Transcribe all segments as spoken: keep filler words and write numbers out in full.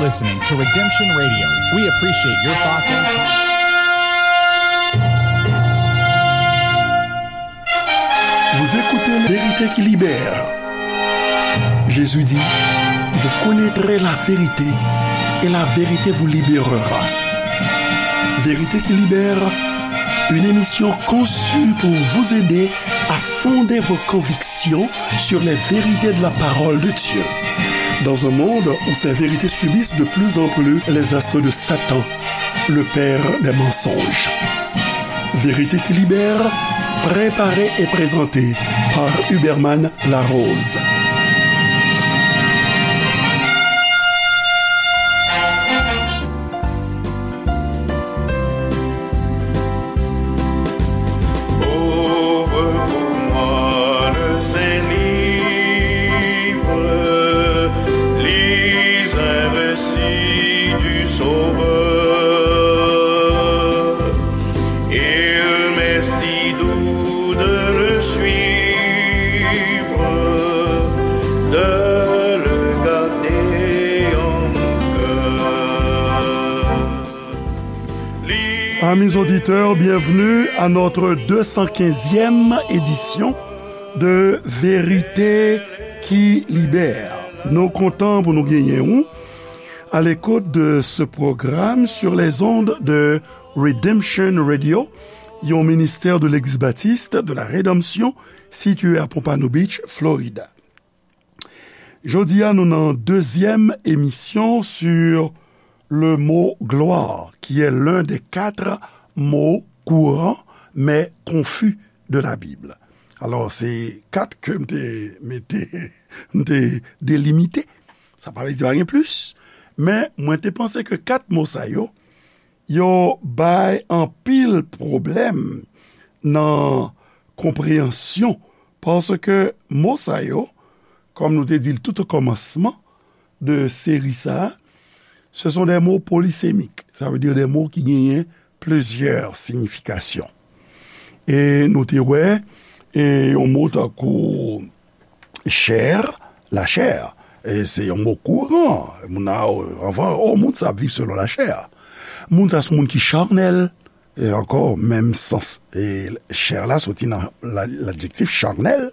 Listening to Redemption Radio. We appreciate your thoughts and Vous écoutez Vérité qui libère. Jésus dit, vous connaîtrez la vérité et la vérité vous libérera. Vérité qui libère, une émission conçue pour vous aider à fonder vos convictions sur les vérités de la parole de Dieu. Dans un monde où ces vérités subissent de plus en plus les assauts de Satan, le père des mensonges. Vérité qui libère, préparée et présentée par Huberman Larose. Ouvre pour moi le Saint-Livre, lis un récit du Sauveur. Il m'est si doux de le suivre, de le garder en mon cœur. Amis auditeurs, bienvenue à notre deux cent quinzième édition de Vérité qui libère. Nou kontan pou nou genyen ou à l'écoute de ce programme sur les ondes de Redemption Radio, yon ministè de Legliz Batis de la Redanmsyon sitiye a Pompano Beach, Florida. Jodi a, nou nan dezyèm emisyon sur le mot gloire, qui est l'un des quatre mots courants mais confus de la Bible. Alò, se kat ke m te mete, m te delimite. Sa pa vle di pa gen plis, men mwen te panse ke kat mo sa yo, yo bay anpil pwoblèm nan konpreyansyon, paske mo sa yo, kòm nou te di l tout o kòmansman de seri sa a, ce sont des mots polysémiques. Sa vle di de mo ki genyen plizyè siyifikasyon. E nou te wè, e yon mo tankou chè, lachè, e se yon mo kouran. Moun a, anvan, o, moun sa ap viv selon lachè. Moun sa se moun ki chanèl, e ankò, menm sans. E chè la soti nan la, ladjektif chanèl,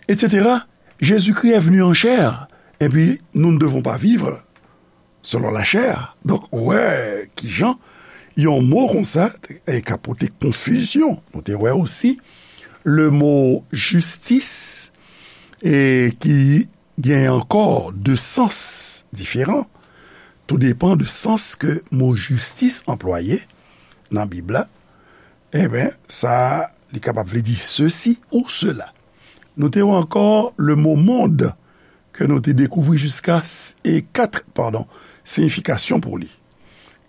et cetera. Jésus-Christ est venu en chair. Et puis, nous ne devons pas vivre selon la chair. Donk, ou wè kijan yon mo konsa e ka pote konfizyon. Nou te wè osi le mo jistis, e ki gen ankò de sans diferan. Tou depan de sans ke mo jistis anplwaye nan Bib la. Eben, sa, li kapab vle di sesi ou sela. Nou te wè ankò le mo mond, ke nou te dekouvri jiska s-, e kat, padon, siyifikasyon pou li.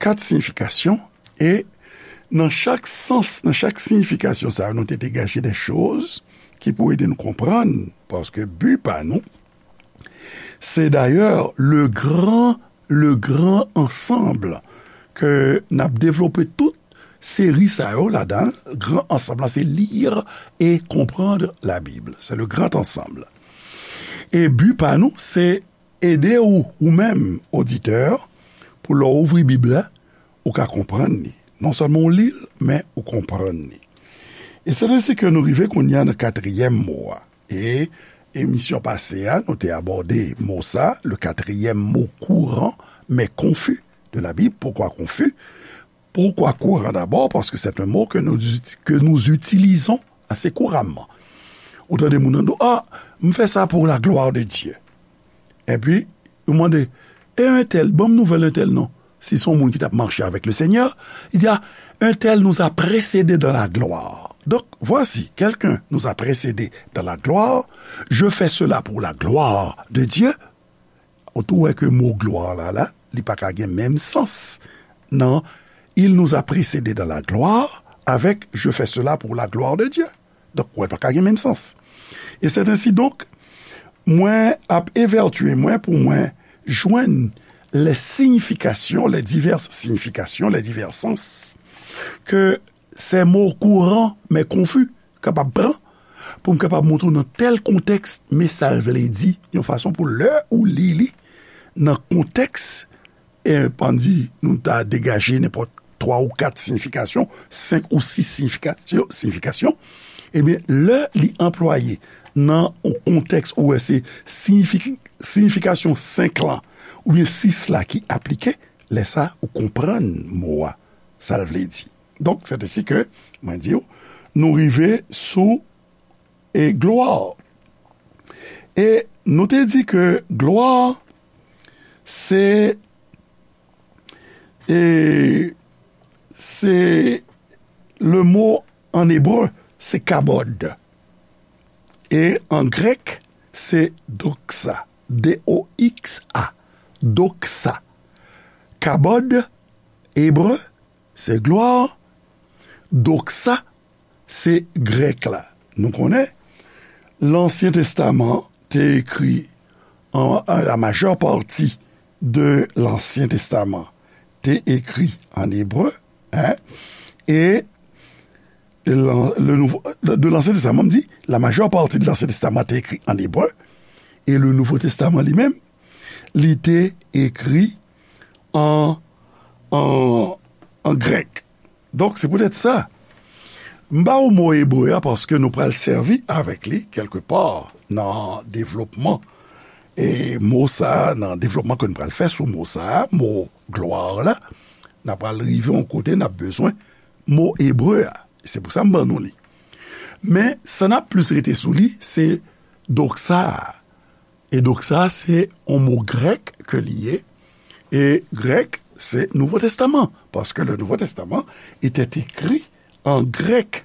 Kat siyifikasyon, e nan chak sans, nan chak siyifikasyon sa yo, nou te degaje de choz ki pou ede nou konprann, paske bi pa nou, se dayè le gran, le gran ansanm ke n ap devlope tout seri sa yo ladan l. Gran ansanm lan, se lire et comprendre la Bible. C'est le grand ensemble. E bi pa nou, se ede ou, ou menm, oditè, pou lè w ouvri Bib la, ou ka konprann li. Non sèlman w li l, men ou konprann li. E se ensi ke nou rive kounye a nan katriyèm mo a. E emisyon pase a, nou te abòde mo sa, le quatrième mot courant, mais confus de la Bible. Pourquoi confus? Pourquoi courant d'abord? Parce que c'est un mot que nous, que nous utilisons assez couramment. Ou tande moun nan di w, ah, m fè sa pour la gloire de Dieu. Epi, yo mande, e entèl, ban m nouvèl entèl non. Si se yon moun ki t ap mache avèk le Seigneur, li di, ah, un tel nous a précédés dans la gloire. Donc, voici, quelqu'un nous a précédés dans la gloire, je fais cela pour la gloire de Dieu. Ou tou wè ke mo glwa la, la, li pa ka gen menm sans nan il nous a précédés dans la gloire avèk je fais cela pour la gloire de Dieu. Donk, wè, pa ka gen menm sans. E c'est ainsi donc, mwen ap evètye mwen pou mwen jwenn les significations, les diverses significations, les divers sens que ces mots courants mais confus kapab pran, pou m kapab montre w nan tèl kontèks, men sa l vle di, yon fason pou lè ou li li, nan kontèks, e, ann di, nou ta degaje nenpòt twa ou kat siyifikasyon, senk ou sis siyifikasyon, siyifikasyon, ebyen, lè li anplwaye nan yon kontèks ou wè se siyifik-, siyifikasyon senk lan oubyen sis la ki aplike, lè sa, ou konprann mo a, sa l vle di. Donk, sètesi ke, mwen di w, nou rive sou, e, glwa. E nou te di ke glwa, se, e, se le mo an ebre, se kabod. E an grèk, se doxa. D O X A. Doxa. Kabod, ebre, se glwa. Doxa, se grèk la. Nou konnen, Lansyen Testaman te ekri an, an, la majeure partie de l'Ancien Testament te ekri an ebre, hein, e lan-, le nouvo, de l'Ancien Testament, m di, la majeure partie de l'Ancien Testament te ekri an ebre, e le Nouveau Testament li menm, li te ekri an, an, an grèk. Donk, se poutèt sa, m ba w mo ebre a paske nou pral sèvi avèk li kèlkepa nan devlopman. E mo sa a, nan devlopman ke nou pral fè sou mo sa a, mo glwa la, n a pral rive yon kote n ap bezwen mo ebre a. Se pou sa m ban nou li. Men, sa n ap plis rete sou li, se doxa a. E doxa, se yon mo grèk ke li ye. E grèk, se Nouvo Testaman. Paske le Nouveau Testament était écrit en grec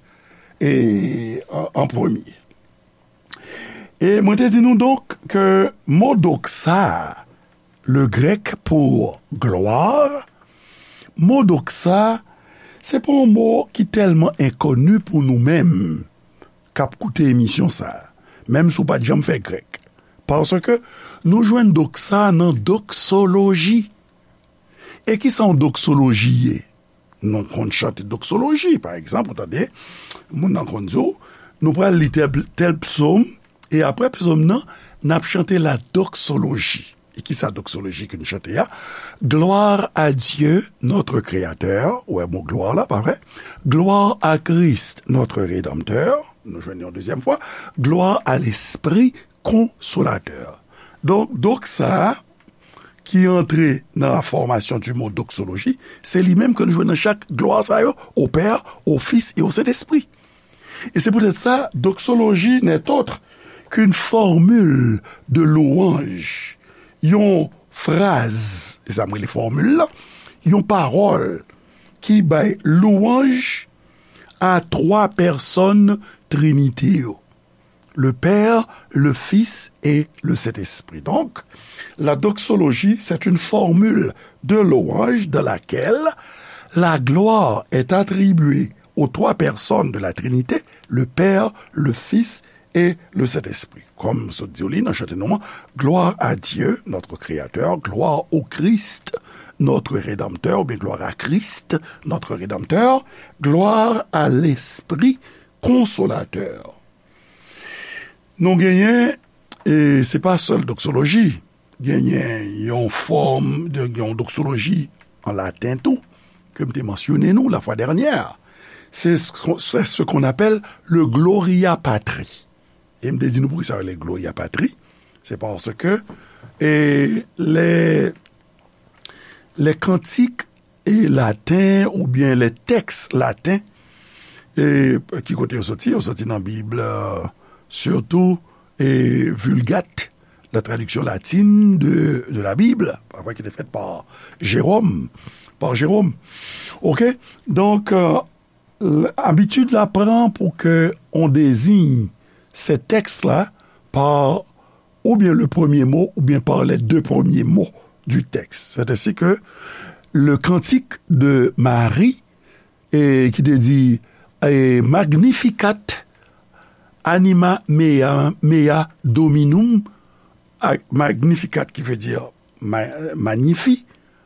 et en, en premier. E mwen te di nou donk ke mo doxa, le grèk pou glwa, mo doxa, se pa yon mo ki tèlman enkoni pou nou menm k ap koute emisyon sa a, menm si w pa t janm fè grèk. Paske nou jwenn doxa nan doksoloji. E kisa yon doksoloji ye? Nou konn chante doksoloji, pa egzanp, ou tande, moun nan konn di w, nou pral li tèl, tèl psòm, e apre psòm nan, n ap chante la doksoloji. E kisa doksoloji ke n chante a? Gloire à Dieu, notre Créateur, ou wè mo glwa la, pa vre? Gloire à Christ, notre Rédempteur, nou jwenn yon dezyèm fwa, gloire à l'Esprit Consolateur. Donk, doxa a, ki antre nan la formation du mot doxologie, se li menm ke nou jwenn nan chak glwa sa yo, au Père, au Fils et au Saint-Esprit. E se poutèt sa, doxologie n'est autre qu'une formule de louange, yon fraz, se sa m rele fòmil la, yon pawòl ki bay louwanj a twa pèsòn Trinite yo. Le Père, le Fils et le Saint-Esprit. Donc, la doxologie, c'est une formule de louange dans laquelle la gloire est attribuée aux trois personnes de la Trinité, le Père, le Fils et le Saint-Esprit. Kòm sot di w li nan chante nou an, gloire à Dieu, notre Créateur, gloire au Christ, notre Rédempteur, oubyen gloire à Christ, notre Rédempteur, gloire à l'Esprit Consolateur. Nou genyen, e se pa sèl doksoloji, genyen yon fòm de, yon doksoloji an laten tou, ke m te mansyone nou la fwa dènyè. Se, se ce qu'on appelle le Gloria Patri. E m te di nou poukisa yo rele Gloria Patri. Se paske, e, lè, lè kantik e laten oubyen lè tèks laten, e, ki kote yo soti? Yo soti nan Bib, e, sitou, e, Vulgate, la traduction latine de, de la Bible, pa vre, ki te fèt pa Jérôme, pa Jérôme. Oke? Donk, e, l-, abitid la pran pou ke on désigne ces textes-là par ou bien le premier mot ou bien par les deux premiers mots du texte. C'est ainsi que le cantique de Marie, e, ki te di, e, Magnificat anima mea, mea dominum, a, Magnificat ki vle di ma-, magnifi,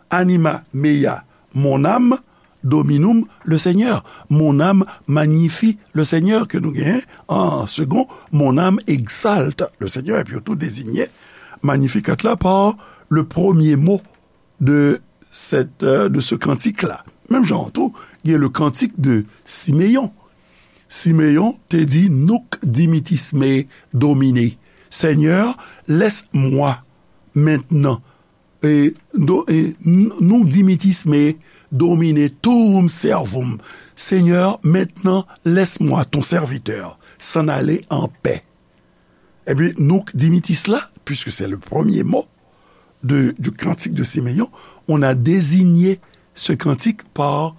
anima mea, mon âme, dominum, le Seigneur. Mon âme magnifie le Seigneur, ke nou genyen an segon, mon âme exalte le Seigneur. Epi yo tou dezinye Magnificat la pa le premier mot de cette, euh, de ce cantique-là. Menm jan an tou, gen le cantique de Siméon. Simeyon te di, Nunc dimittis me, Domine. Seigneur, laisse-moi maintenant. Et, do- et n- nunc dimittis me, Domine, tuum servum. Seigneur, maintenant, laisse-moi, ton serviteur, s'en aller en paix. Epi, nunc dimittis la, puisque c'est le premier mot de, du cantique de Simeon, on a désigné ce cantique par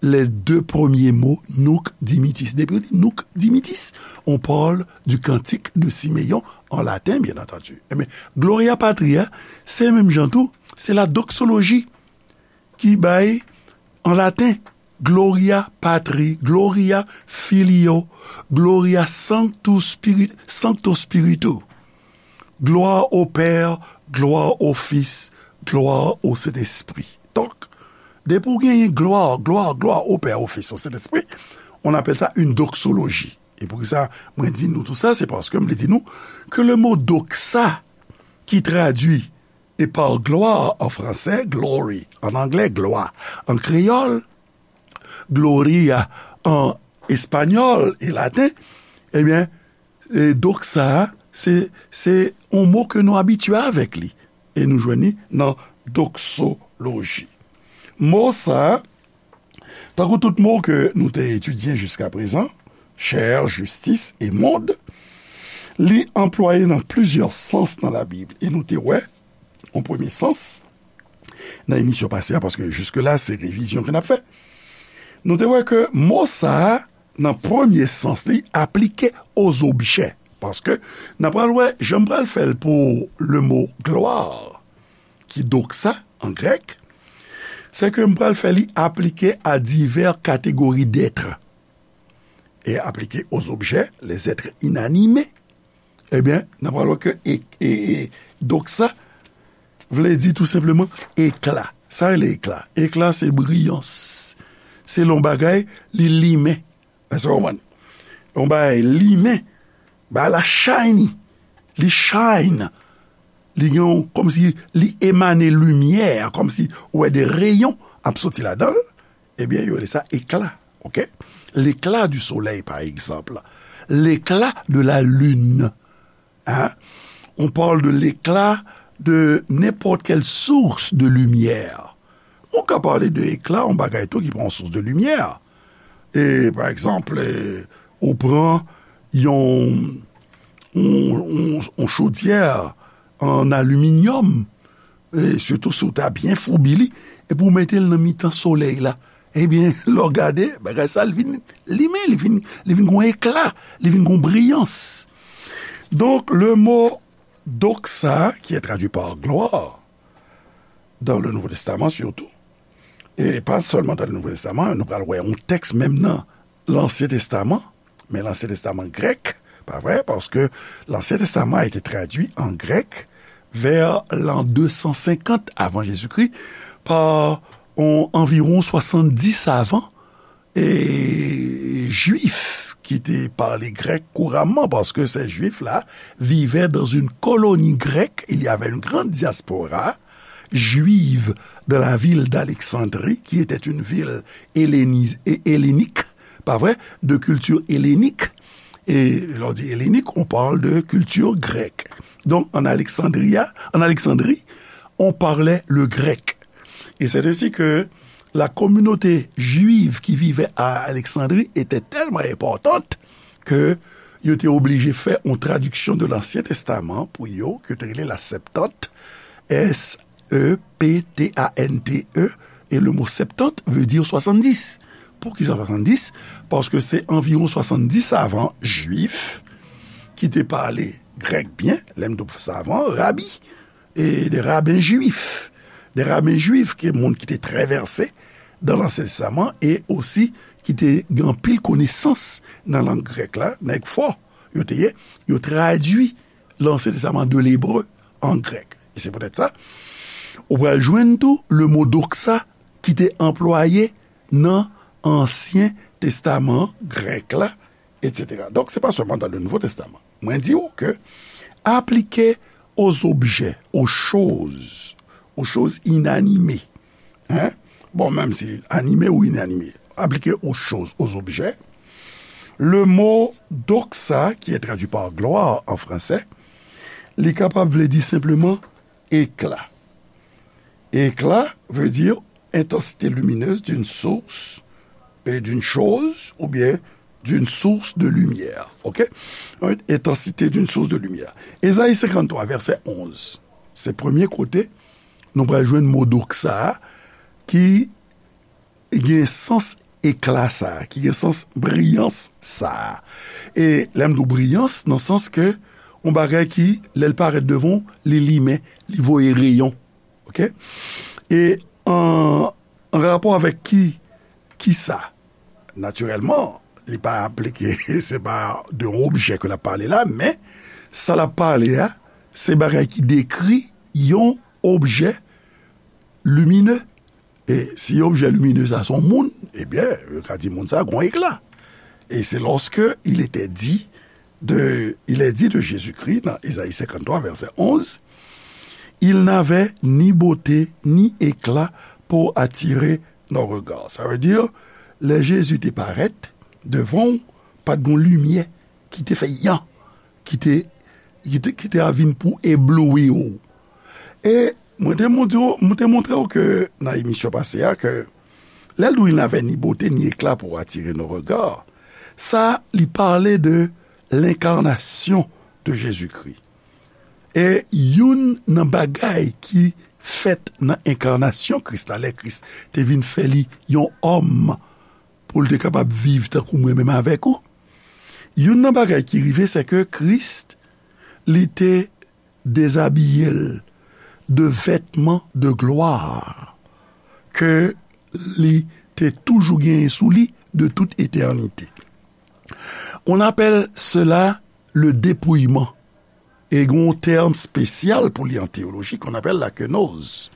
les deux premiers mots, nunc dimittis. Depi ou di nunc dimittis, on parle du cantique de Simeon en latin, bien entendu. Ebyen, Gloria Patri a, se menm jan tou, se la doxologie ki bay an laten, Gloria Patri, Gloria Filio, Gloria Sanctus Spiri- Sancto Spiritu. Glwa o Pè, glwa o Fis, glwa o Sentespri. Donk, depi w genyen glwa, glwa, glwa o Pè, o Fis, o Sentespri, on appelle ça une doxologie. E poukisa mwen di nou tou sa, se paske m vle di nou ke le mo doxa, ki tradui e par gloire en français, glory en anglais, gloire en créole, gloria en espagnol et latin, ebyen, e doxa, se, se yon mo ke nou abitye avèk li. E nou jwenn li nan doxologie. Mo sa, tankou tout mo ke nou te etidye jiska prezan, chair, justice et monde, li anplwaye nan plizyè sans nan Labib. E nou te wè, an premye sans, nan emisyon pase a, paske jiske la, se revizyon ke n ap fè. Nou te wè ke mo sa a, nan premye sans li, aplike aux objets. Paske n ap pral wè, jan m pral fè l pou le mo gloire, ki doxa an grèk, se ke m pral fè li aplike à divers catégories d'êtres. Et appliqué aux objets, les êtres inanimés, ebyen, n ap pral wè ke e, e, e, doxa vle di tou senpleman ekla. Sa rele ekla. Ekla se briyans. Se lè yon bagay, li limen. Èske w konprann? Yon bagay limen, bagay la shiny. Li shine. Li gen yon, kòmsi li emane limyè, kòmsi ou wè de reyon ap soti ladan l. Ebyen, yo rele sa ekla. OK? L'éclat du soleil, par exemple. L'éclat de la lune. Hein? On parle de l'éclat de n'importe quelle source de lumière. Ou ka pale de ekla, yon bagay tou ki pran yon sous de limyè. E, pa egzanp, e, ou pran yon, yon, yon, yon chodyè an aliminyòm, e sitou si w ta byen foubi li, epi w mete l nan mitan solèy la. Ebyen, lè w gade, bagay sa, li vin limen, li vin, li vin gon ekla, li vin gon briyans. Donk, le mo doxa, qui est traduit par gloire, dans le Nouveau Testament surtout, et pas seulement dans le Nouveau Testament, nou pral wè yon tèks menm nan Lansyen Testaman, men Lansyen Testaman grèk, pa vre, paske Lansyen Testaman a été traduit en grec vers l'an deux cent cinquante avant Jésus-Christ par on, anviwon swasanndis savan e, jwif ki te pale grèk kouramman, paske se jwif la vivaient dans une colonie grecque, il y avait une grande diaspora juive dans la ville d'Alexandrie, qui était une ville hellénis- et hellénique, pas vrai, de culture hellénique. Et lè w di hellénique, on parle de culture grecque. Donc, en Alexandria, en Alexandrie, on parlait le grec. Et c'est ainsi que la communauté juive qui vivait à Alexandrie était tellement importante que yo te oblije fè yon tradiksyon de l'Ancien Testament pou yo, ke te rele la Septante, S E P T A N T E, et le mot septante veut dire soixante-dix. Poukisa swasanndis? Paske se anviwon swasanndis savan jwif ki te pale grèk byen, lè m di w savan, rabi, e de raben jwif, de raben jwif, ke moun ki te trè vèse dan Lansyen Testaman e osi ki te gen anpil konesans nan lang grèk la, nèg fò yo te ye, yo tradui Lansyen Testaman de lebre an grèk. E se poutèt sa, ou pral jwenn tou le mo doxa ki te anplwaye nan Ansyen Testaman grèk la, et cetera. Donk, se pa sèlman dans le Nouveau Testament. Mwen di w ke aplike aux objets, aux choses, aux choses inanimées. Hein? Bon, menm si animé ou inanimé, aplike aux choses, aux objets. Le mot doxa, qui est traduit par gloire en français, li kapab vle di senpleman éclat. Éclat veut dire intensité lumineuse d'une source et d'une chose, ou bien d'une source de lumière. OK? Intensité d'une source de lumière. Ézayi senkanntwa, vèsè onz. Se premye kote nou pral jwenn mo doxa a ki gen sans ekla sa a, ki gen sans briyans sa a. E lè m di w briyans, nan sans ke yon bagay ki, lè l parèt devan w, li limen, li voye reyon. OK? E an, an rapò avèk ki, ki sa? Natirèlman, li pa aplike, se pa de yon objè ke l ap pale la, men sa l ap pale a, se bagay ki dekri yon objè limine. E si objè limine sa se yon moun, ebyen, yo ka di moun sa gon ekla. Et c'est lorsque il était dit de, il est dit de Jésus-Christ, dans Ésaïe cinquante-trois, verset onze, il n'avait ni beauté ni éclat pour attirer nos regards. Sa vle di, lè Jezi te parèt devan w, pa t gon limyè ki te fè yan, ki te, ki te, ki te a vin pou ebloui w. E mwen te montre w, mwen te montre w ke nan emisyon pase a, ke lè l di w il n'avait ni beauté ni éclat pour attirer nos regards, sa, li pale de lenkarnasyon de Jezikri. E youn nan bagay ki fèt nan enkarnasyon Kris la, lè Kris te vin fè li yon òm pou l te kapab viv tankou mwen menm avèk ou, youn nan bagay ki rive, se ke Kris, li te dezabiye l de vètman de glwa ke li te toujou genyen sou li de tout etènite. On appelle cela le dépouillement. E gen yon tèm espesyal pou li an teyoloji qu'on appelle la kenoz.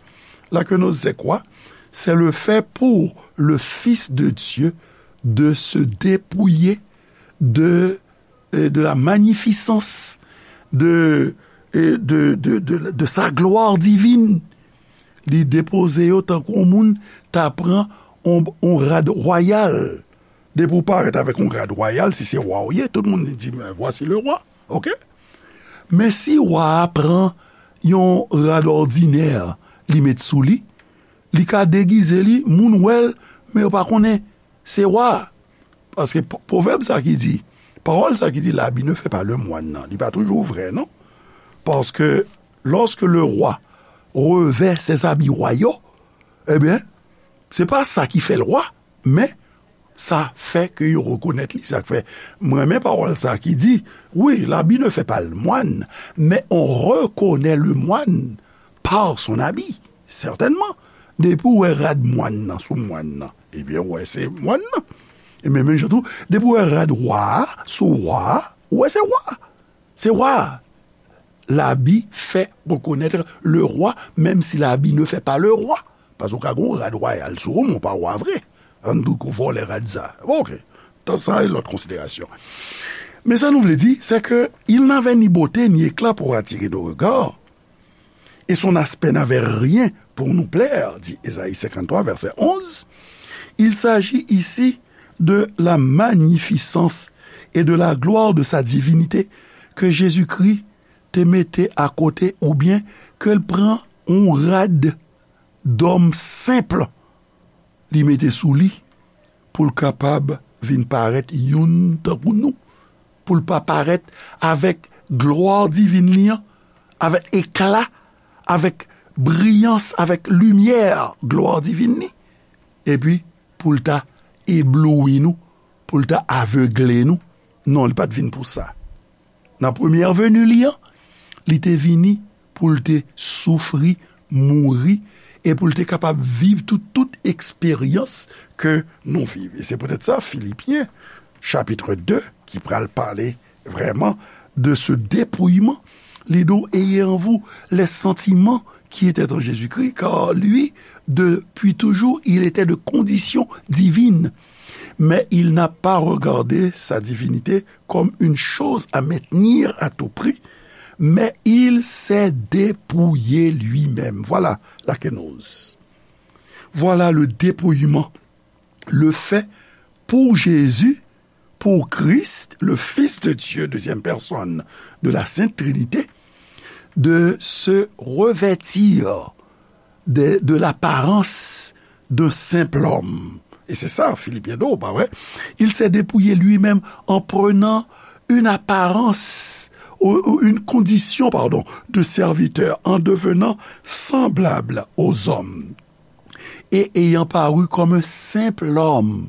La kenoz, c'est quoi? C'est le fait pour le Fils de Dieu de se dépouiller de, euh, de la magnificence de, euh, de, de, de, de sa gloire divine. Li depoze yo tankou yon moun ta pran yon, yon rad wayal. Depi w parèt avèk yon rad wayal, si se wa w ye, tout moun di, "Mais voici le roi." OK? Men si wa a pran yon rad òdinè, li met sou li, li ka degize li, moun wè l, men yo pa konnen se wa a. Paske p-, pwovèb sa ki di, pawòl sa ki di, l'habit ne fait pas le moine nan, li pa toujou vrè, non. Paske lorsque le roi revêt ses habits royaux, ebyen, se pa sa ki fè l wa, men sa fè ke yo rekonèt li. Sa k fè, mwen renmen pawòl sa ki di, wi, l'habit ne fait pas le moine, mais on reconnaît le moine par son habit, certainement. Depi w wè rad mòn nan sou mòn nan, ebyen, w wè se mòn nan. E men menm jan tou, depi w wè rad wa a sou wa a, w wè se wa a. Se wa a. L'habit fait reconnaître le roi, même si l'habit ne fait pas le roi. Paske w ka gen yon rad wayal sou ou, men w pa wa vre. Ann di w ke w vòlè rad sa. Bon, OK. Tan sa, e lòt konsiderasyon. Men sa nou vle di, c'est que il n'avait ni beauté ni éclat pour attirer nos regards, et son aspect n'avait rien pour nous plaire, dit Ésaïe cinquante-trois, verset onze. Il s'agit ici de la magnificence et de la gloire de sa divinité que Jésus-Christ te mete akote oubyen ke l pran yon rad dòm senp li mete sou li pou l kapab vin parèt youn tankou nou, pou l pa parèt avèk glwa divin li an, avèk ekla, avèk briyans, avèk limyè glwa divin li, epi pou l ta ebloui nou, pou l ta avegle nou. Non, li pa t vin pou sa. Nan premyè veni li an, li te vini pou l te soufri, mouri, e pou l te kapab viv tout, tout eksperyans ke nou viv. E se poutèt sa, Filipyen, chapit de, ki pral pale vrèman de ce dépouillement, li di w, ayez en vous les sentiments qui étaient en Jésus-Christ, car lui, depuis toujours, il était de condition divine. Mais il n'a pas regardé sa divinité comme une chose à maintenir à tout prix, Mais il s'est dépouillé lui-même. Voilà la kenoz. Voilà le dépouillement, le fait pour Jésus, pour Christ, le Fils de Dieu, deuxième personne de la Sainte Trinité, de se revêtir de, de l'apparence d'un simple homme. Et c'est ça, Philippiens deux, bah ouais. Il s'est dépouillé lui-même en prenant une apparence ou, ou une condition, pardon, de serviteur en devenant semblable aux hommes. Et ayant paru comme un simple homme,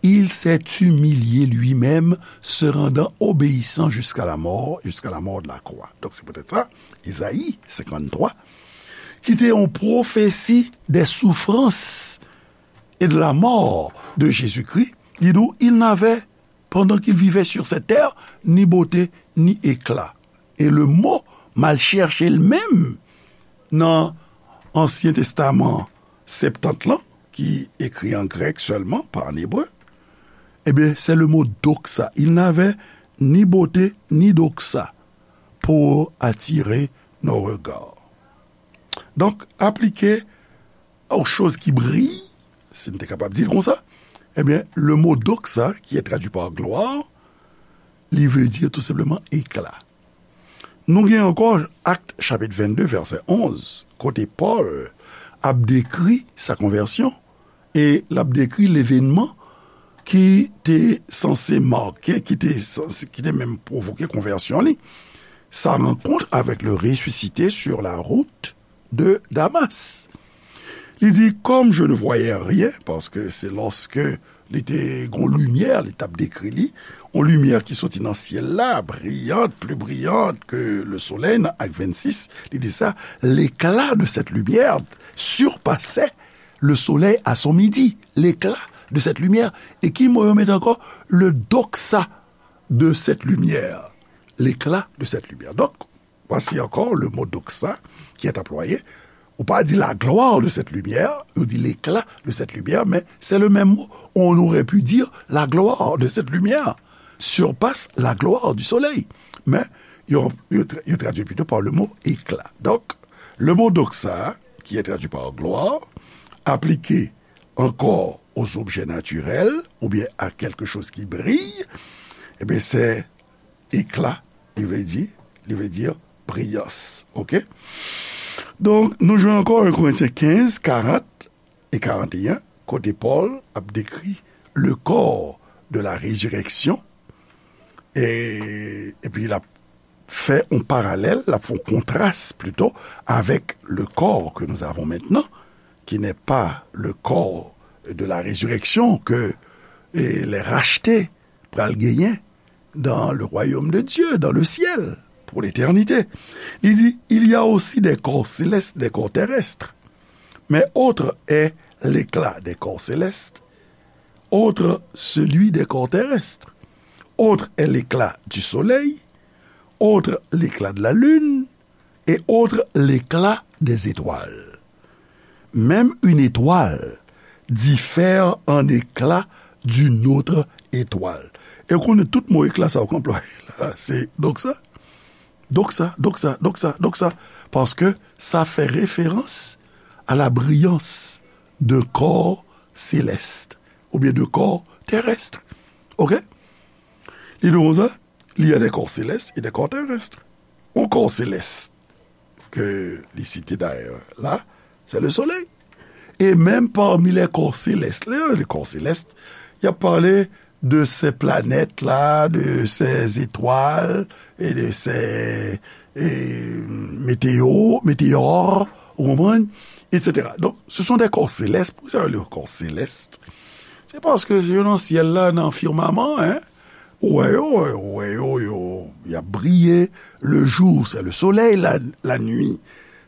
il s'est humilié lui-même, se rendant obéissant jusqu'à la mort, jusqu'à la mort de la croix. Donc c'est peut-être ça, Isaïe cinquante-trois, ki te yon pwofesi des souffrances et de la mort de Jésus-Christ, li di w, il n'avait, pendant qu'il vivait sur cette terre, ni beauté, ni éclat. E le mo m al chèche l menm nan Ansyen Testaman Septant lan, ki ekri an grèk sèlman, pa an ebre, ebyen, c'est le mot doxa. Il n'avait ni beauté, ni doxa pour attirer nos regards. Donk, aplike aux choses qui brillent, si n te kapab di l konsa, ebyen, le mot doxa, qui est traduit par gloire, li vle di tou senpleman éclat. Nou gen ankò Actes chapitre vingt-deux, verset onze, kote Pòl ap dekri sa konvèsyon e l ap dekri levenman ki te sanse make, ki te sanse, ki te menm pwovoke konvèsyon li. Sa rencontre avec le ressuscité sur la route de Damas. Li di, comme je ne voyais rien, paske se lòske li te gon limyè, li t ap dekri li, yon limyè ki soti nan syèl la, briyant, plus brillante que le soleil, nan Actes vingt-six, li di sa, l'éclat de cette lumière surpassait le soleil à son midi, l'éclat de cette lumière. E ki mo yo mete ankò? Le doxa de cette lumière, l'éclat de cette lumière. Donk, voici encore le mot doxa qui est employé. Ou pa di la gloire de cette lumière, ou di l'éclat de cette lumière, mais c'est le même mot. On aurait pu dire la gloire de cette lumière surpasse la gloire du soleil. Men, yo, yo tra-, yo tradui plito pa le mo éclat. Donk, le mot doxa, qui est traduit par gloire, aplike ankò aux objets naturels, oubyen a quelque chose qui brille, ebyen, se éclat, li vle di, li vle di briyans. Oke? Donk, nou jwenn ankò un Corinthiens quinze, quarante et quarante et un, kote Pòl ap dekri le corps de la résurrection, e, epi l ap fè yon paralèl, l ap fè yon kontras plito avec le corps que nous avons maintenant, qui n'est pas le corps de la résurrection que, eh, les rachetés pral genyen dans le royaume de Dieu, dans le ciel, pour l'éternité. Li di, il y a aussi des corps célestes, des corps terrestres. Mais autre est l'éclat des corps célestes, autre celui des corps terrestres, autre est l'éclat du soleil, autre l'éclat de la lune, et autre l'éclat des étoiles. Même une étoile diffère en éclat d'une autre étoile. E w konnen tout mo éclat sa yo k anplwaye la, se doxa, doxa, doxa, doxa, doxa, paske sa fè referans à la brillance d'un corps céleste, oubyen de corps terrestre. Oke? Li di konsa, il y a des corps célestes et des corps terrestres. Un corps céleste, ke li site dayè la, c'est le soleil. Et même parmi les corps célestes, les, les corps célestes, y a parlé de ces planètes-là, de ces étoiles et de ces, et, météo-, météores, ou konprann, et cetera. Donc, ce sont des corps célestes. Poukisa yo rele yo corps célestes? Se paske yo nan syèl la, nan firmaman, hein. Ou wè yo, ou wè yo, yo, y ap briye. Le jour, c'est le soleil, la, la nuit,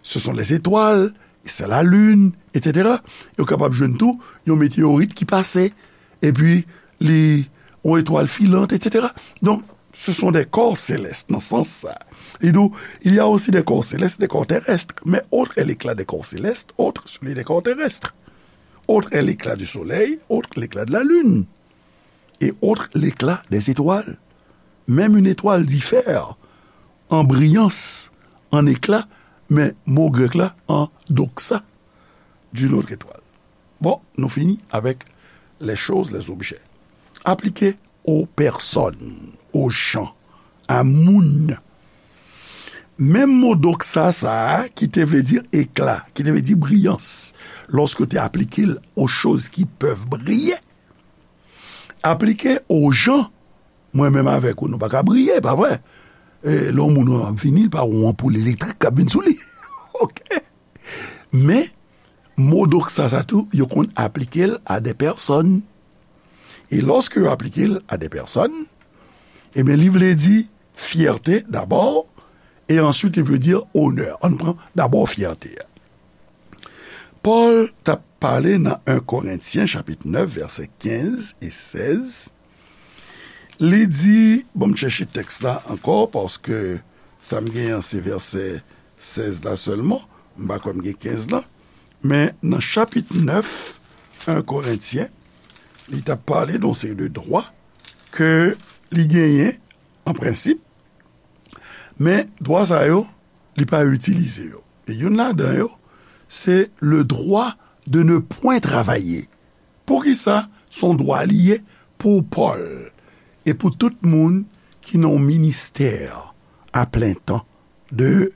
ce sont les étoiles, c'est la lune, et cetera. Yo kapab jwenn tou yon meteyorit ki pase, epi li yon etwal filant, et cetera. Donc, ce sont des corps célestes, nan sans sa. Li di w, il y a aussi des corps célestes, des corps terrestres, mais autre est l'éclat des corps célestes, autre celui des corps terrestres. Autre est l'éclat du soleil, autre l'éclat de la lune, et autre l'éclat des étoiles. Même une étoile diffère an briyans, an ekla, men mo grèk la, an doxa, d'une autre étoile. Bon, nou fini avèk les choses, les objets. Aplike aux personnes, aux gens, a moun. Menm mo doxa sa a, ki te vle di ekla, ki te vle di briyans, lòske w te aplike l aux choses qui peuvent briller, aplike aux gens, mwen menm avèk ou, nou pa ka briye, pa vre? E, lè yon moun ap vini, li pa yon anpoul elektrik k ap vin sou li. Oke? Men, mo doxa sa tou, yo konn aplike l a des personnes. E lòske yo aplike l a des personnes, ebyen, li vle di fyète dabò, e answit, li vle di onè. Ann pran dabò fyète a. Pòl t ap pale nan en Korentyen, chapit nèf, vèsè kenz e sèz. Li di, bon, m chèche tèks la ankò, paske sa m genyen an, se vèsè sèz la sèlman. M pa kwè m gen kenz la. Men nan chapit nèf, en Korentyen, li t ap pale de yon seri de dwa ke li genyen, an prensip, men dwa sa yo, li pa itilize yo. E youn ladan yo, se le droit de ne point travailler. Poukisa se yon dwa li ye pou Pòl e pou tout moun ki nan yon ministè a plen tan, de,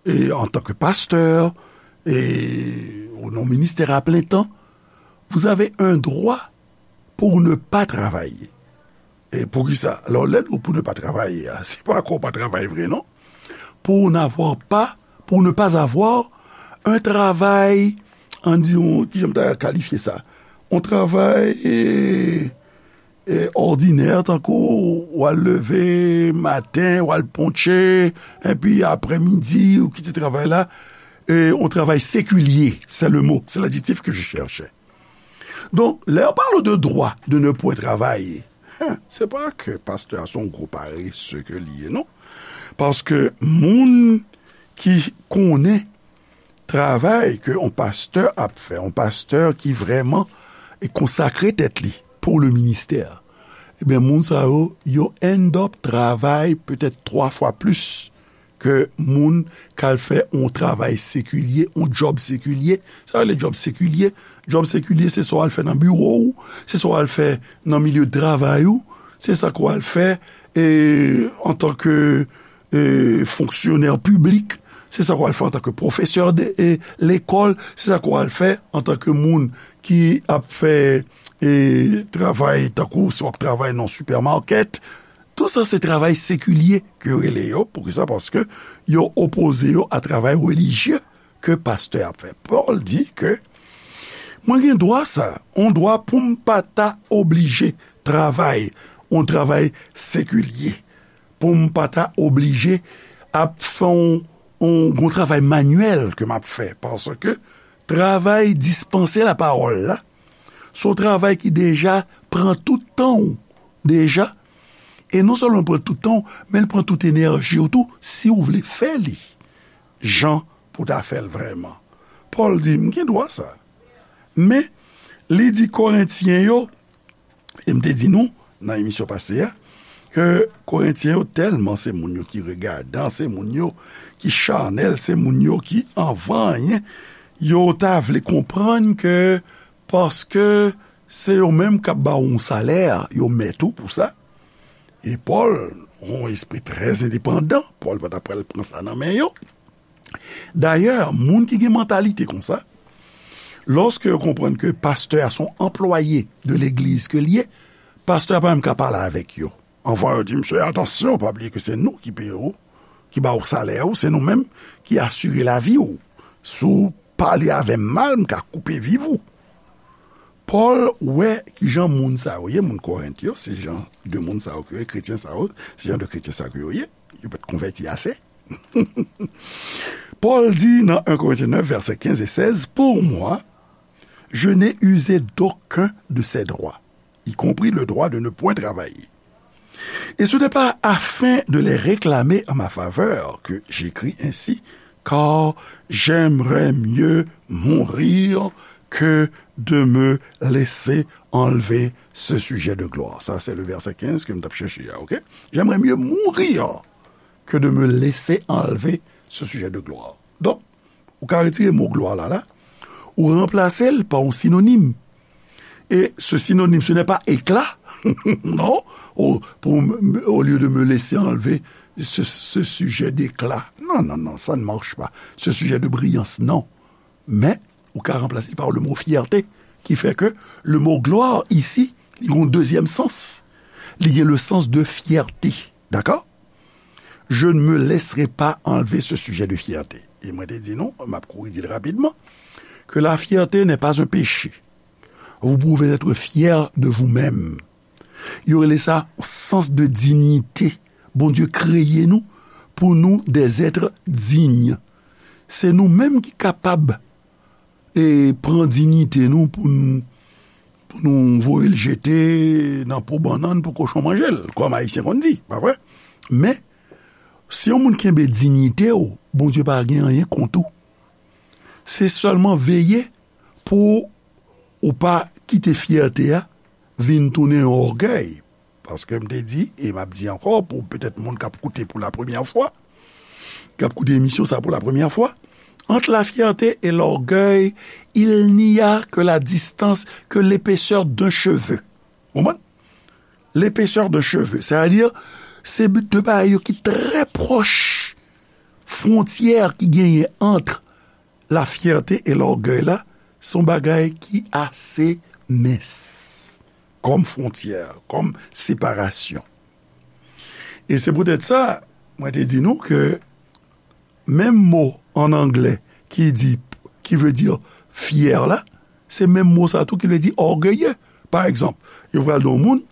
e, antanke pastè, e, ou nan yon ministè a plen tan, vous avez un droit pour ne pas travailler. E poukisa? Alò, lè nou pou ne pa travay a, se pa ke w pa travay vre, non. Pour n'avoir pas, pour ne pas avoir un travail, ann di, yon, kijan m ta kalifye sa? Yon travay, e, e, òdinè, tankou w al leve maten, w al ponche, epi aprèmidi, ou kite travay la, e, yon travay sekilye, c'est le mot, c'est l'adjectif que je cherchais. Donk, lè yo pale de dwa de ne point travay, hen, se pa ke pastè a se yon gwo parese ke li ye, non. Paske moun ki konnen travay ke yon pastè ap fè, yon pastè ki vrèman konsakre tèt li pou le ministè, ebyen, moun sa yo, yo end up travay petèt twa fwa plis ke moun k al fè yon travay sekilye, yon djòb sekilye. Sa yo rele djòb sekilye. Djòb sekilye, se sa w al fè nan biwo w, se sa w al fè nan milye de travay ou, se sa ke w al fè, e, antanke, e, fonksyonè piblik, se sa ke w al fè antanke pwofesè de, e, lekòl, se sa ke w al fè antanke moun ki ap fè, e, travay tankou si w ap travay nan yon sipèmakèt, Tout sa se travay sekilye ke yo rele yo. Poukisa? Paske yo opoze yo a travay relijye ke pastè ap fè. Pòl di ke mwen gen dwa sa, yon dwa pou m pa ta oblije travay, yon travay sekilye, pou m pa ta oblije ap fè yon, yon, yon travay manyèl ke m ap fè, paske travay dispanse lapawòl la, se yon travay ki deja pran tout tan w deja. E non sèlman l pran tout tan w, men l pran tout enèji w tou, si w vle fè li jan pou w ta fè l vrèman. Pòl di, m gen dwa sa. Men, li di Korentyen yo, e m te di nou nan emisyon pase a, ke Korentyen yo tèlman se moun yo ki regadan, se moun yo ki chanèl, se moun yo ki anvan anyen, yo ta vle konprann ke paske se yo menm k ap ba w yon salè, yo mèt ou pou sa. E Pòl, yon espri trè endepandan, Pòl pa ta pral pran sa nan men yo. Dayè, moun ki gen mantalite konsa, lòske yo konprann ke pastè a se yon anplwaye de legliz ke l ye, pastè a pa menm ka pale avèk yo. Anvan yo di, "Mesye, atansyon, pa bliye ke se nou ki peye w, ki ba w salè ou, se nou menm ki asire lavi w. Si w pale avè m mal, m ka koupe viv ou." Pòl wè kijan moun sa yo ye, moun Korent yo, se jan de moun sa yo ke yo ye, kretyen sa yo, se jan de kretyen sa yo ke yo ye, yo pa t konvèti ase. Pòl di nan en Korentyen nèf, vèsè kenz e sèz, "Pour moi, je n'ai usé d'aucun de ces droits, y compris le droit de ne point travailler. Et ce n'est pas afin de les réclamer en ma faveur que j'écris ainsi, car j'aimerais mieux mourir que de me laisser enlever ce sujet de gloire." Sa, se le vèsè kenz ke m t ap chèche a, oke? "J'aimerais mieux mourir que de me laisser enlever ce sujet de gloire. Donk, ou ka retire mo glwa la, la, ou ranplase l pa yon sinonim. Et ce synonyme, ce n'est pas éclat. Non, au, pour, au lieu de me laisser enlever ce, ce sujet d'éclat. Non, non, non, ça ne marche pas. Ce sujet de brillance, non. Men, ou ka ranplase l pa le mo fierté, ki fè ke le mo glwa isi, li gen yon dezyèm sans. Li gen le sens de fierté. Dakò? Je ne me laisserai pas enlever ce sujet de fierté. E mwen te di nou, m ap kouri di l rapidman, que la fierté n'est pas un péché. Vous pouvez être fier de vous-même. Yo rele sa sens de dignité. Bondye kreye nou pou nou des êtres dignes. Se nou menm ki kapab e pran diyite nou pou n, pou nou voye l jete nan po bannann pou kochon manje l, kòm Ayisyen konn di, pa vre? Men, si yon moun kenbe diyite w, Bondye pa gen anyen kont ou. Se sèlman veye pou ou pa kite fyète a vin tounen yon ògèy. Paske m te di, e m ap di ankò, pou petèt moun k ap koute pou la premyè fwa, k ap koute emisyon sa pou la premyè fwa, entre la fierté et l'orgueil, il n'y a que la distance, que l'épaisseur d'un cheveu. Ou konprann? L'épaisseur d'un cheveu. Sètadi, se de bagay yo ki trè pwòch. Fwontyè ki genyen ant la fierté et l'orgueil la, se yon bagay ki ase mens. Kòm fwontyè, kòm separasyon. E se poutèt sa, mwen te di nou ke menm mo an anglè ki di, ki vle di fyè la, se menm mo sa tou ki vle di ògeye. Pa egzanp, yo pral di yon moun,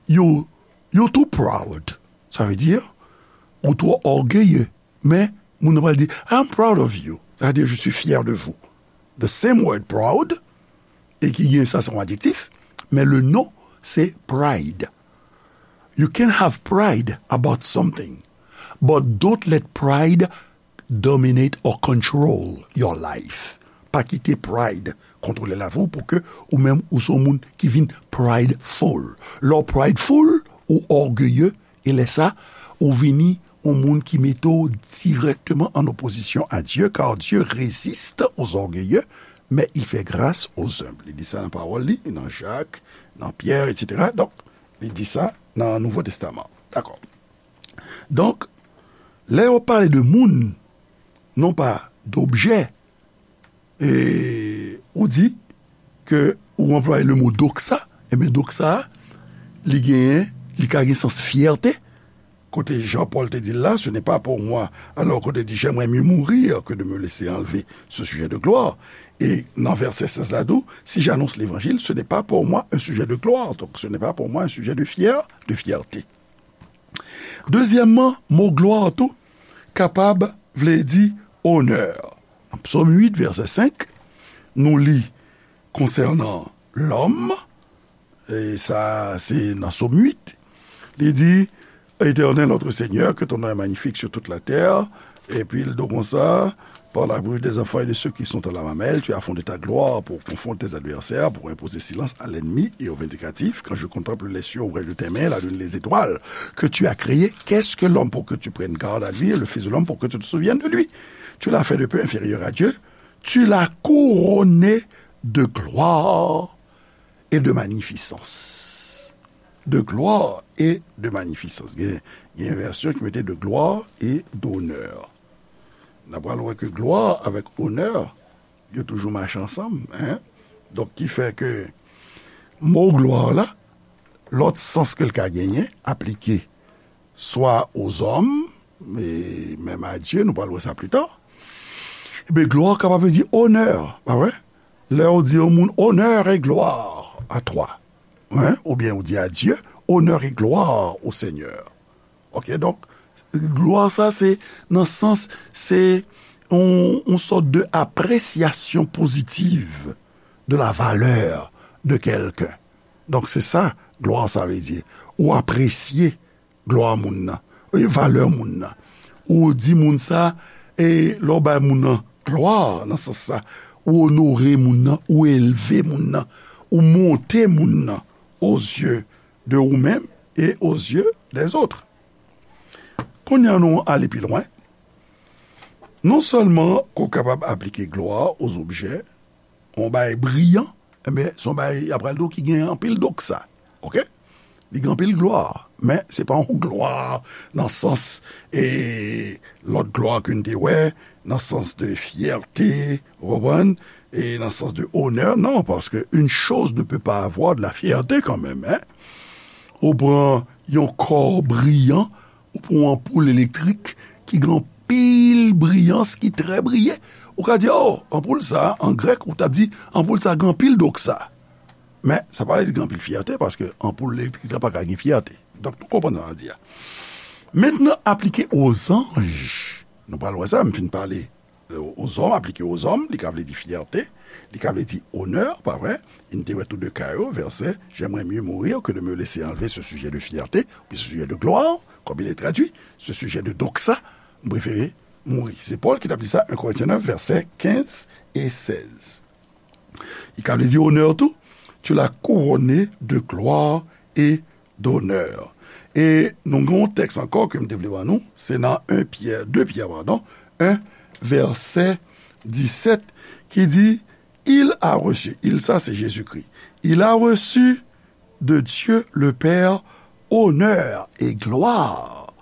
you, you too proud. Sa vle di, ou twò ògeye. Men, moun nan pral di, I'm proud of you. Sa vle di, je suis fier de vous. The same word proud, e ki gen sa, se yon adjektif, men le non, se pride. You can have pride about something, but don't let pride dominate or control your life. Pa kite pride kontwole lavi w pou ke ou menm ou se yon moun ki vin prideful. Lè w prideful, ou ògeye, e lè sa, ou vini yon moun ki mete w dirèkteman an opozisyon a Dye, car Dieu résiste aux orgueilleux, mais il fait grâce aux humbles. Li di sa nan pawòl li, nan Jak, nan Pyè, etsetera. Donk, li di sa nan Nouvo Testaman. Dakò. Donk, lè yo pale de moun, non pa d'objè, e ou di ke ou anplwaye le mo doxa, ebyen, doxa a, li genyen, li ka gen sans fyète, kote Jan Pòl te di l la, ce n'est pas pour moi. Alò, kote di, j'aimerais mieux mourir que de me laisser enlever ce sujet de gloire. E nan vèsè sèz la tou, si j'annonce l'évangile, ce n'est pas pour moi un sujet de gloire. Donc, ce n'est pas pour moi un sujet de fier, de fierté. Dezyèmman, mo glwa tou kapab vle di onè. Nan Psòm uit, vèsè senk, nou li konsènan lòm, e sa se nan Psòm uit, li di, Éternel notre Seigneur, que ton nom est magnifique sur toute la terre. Epi l di konsa, par la bouche des enfants et de ceux qui sont à la mamelle, tu as fondé ta gloire pour confondre tes adversaires, pour imposer silence à l'ennemi et au vindicatif. Quand je contemple les cieux, ouvrage de tes mains, la lune, les étoiles que tu as créées, qu'est-ce que l'homme pour que tu prennes garde à lui, et le fils de l'homme pour que tu te souviennes de lui? Tu l'as fait de peu inférieur à Dieu, tu l'as couronné de gloire et de magnificence. De gloire et de magnificence. Gen, gen vèsyon ki mete de gloire et d'honneur. N ap pral wè ke glwa avèk onè, yo toujou mache ansanm, en. Donk, ki fè ke mo glwa la, lòt sans ke l ka genyen, aplike swa ozòm, e menm a Dye, nou pral wè sa pli ta. Ebyen, glwa kapab vle di onè, pa vre? Lè ou di yon moun, honneur et gloire à toi, en, oubyen ou di a Dye, honneur et gloire au Seigneur. Ok, donk, glwa sa, se nan sans, se yon, yon sòt de apresyasyon pozitiv de la valeur de quelqu'un. Donk, se sa, glwa sa vle di. Ou apresye glwa moun nan, e valè moun nan. Ou di moun sa, e lè w bay moun nan glwa nan sans sa, ou onore moun nan, ou elve moun nan, ou monte moun nan aux yeux de ou-même et aux yeux des autres. Kounye a nou ale pi lwen. Non sèlman ke w kapab aplike glwa aux objets, yon bagay briyan, ebyen, se yon bagay, y ap pral di w ki gen anpil doksa. Oke? Li gen anpil glwa, men se pa yon glwa nan sans, e, lòt glwa ke n te wè, nan sans de fyète, ou konprann? E nan sans de onè, non, paske une chose ne peut pas avoir de la fierté quand même, hein? Ou pran yon kò briyan, ou pran yon anpoul elektrik ki gen anpil briyans, ki trè briye. Ou ka di, "Oh, anpoul sa, an grèk, ou t ap di, anpoul sa gen anpil doksa." Men, sa pa vle di gen anpil fyète, paske anpoul elektrik la pa ka gen fyète. Donk, nou konprann sa m ap di a. Mentnan, aplike aux anges. Nou pral wè sa, m fin pale aux hommes, aplike aux hommes, li ka vle di fyète, li ka vle di onè, pa vre? E n te wè tou de ka yo, vèsè, "J'aimerais mieux mourir que de me laisser enlever ce sujet de fierté, puis ce sujet de gloire", comme il est traduit, ce sujet de doxa, m prefere mouri. Se Pòl ki t ap di sa, un Corinthiens neuf, vèsè kenz e sèz. Li ka vle di onè tou, "Tu l'as couronné de gloire et d'honneur." E nou gen yon tèks ankò ke m te vle ban nou, se nan un Pyè, de Pyè, padon, un, vèsè disèt, ki di, "Il a reçu", il sa se Jezikri, "il a reçu de Dieu le Père honneur et gloire,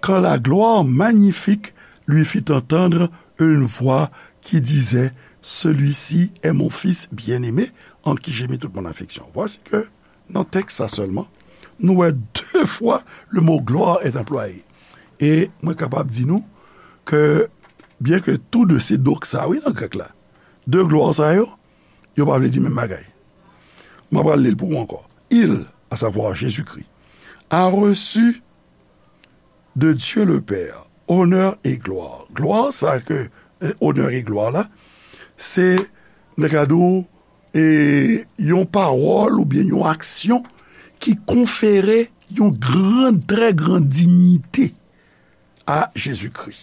quand la gloire magnifique lui fit entendre une voix qui disait, celui-ci est mon Fils bien-aimé, en qui j'ai mis toute mon affection." Voici que nan tèks sa sèlman, nou wè de fwa le mot gloire est employé. E mwen kapab di nou ke, byen ke tou de se doxa, wi, nan grèk la, de glwa sa yo, yo pa vle di menm bagay. Mwen pral li l pou ou ankò. Il, à savoir Jésus-Christ, a reçu de Dieu le Père, honneur et gloire. Glwa sa ke, eh, onè e glwa la, se, m ta ka di w, e, yon pawòl oubyen yon aksyon ki konfere yon gran, trè gran diyite a Jezikri.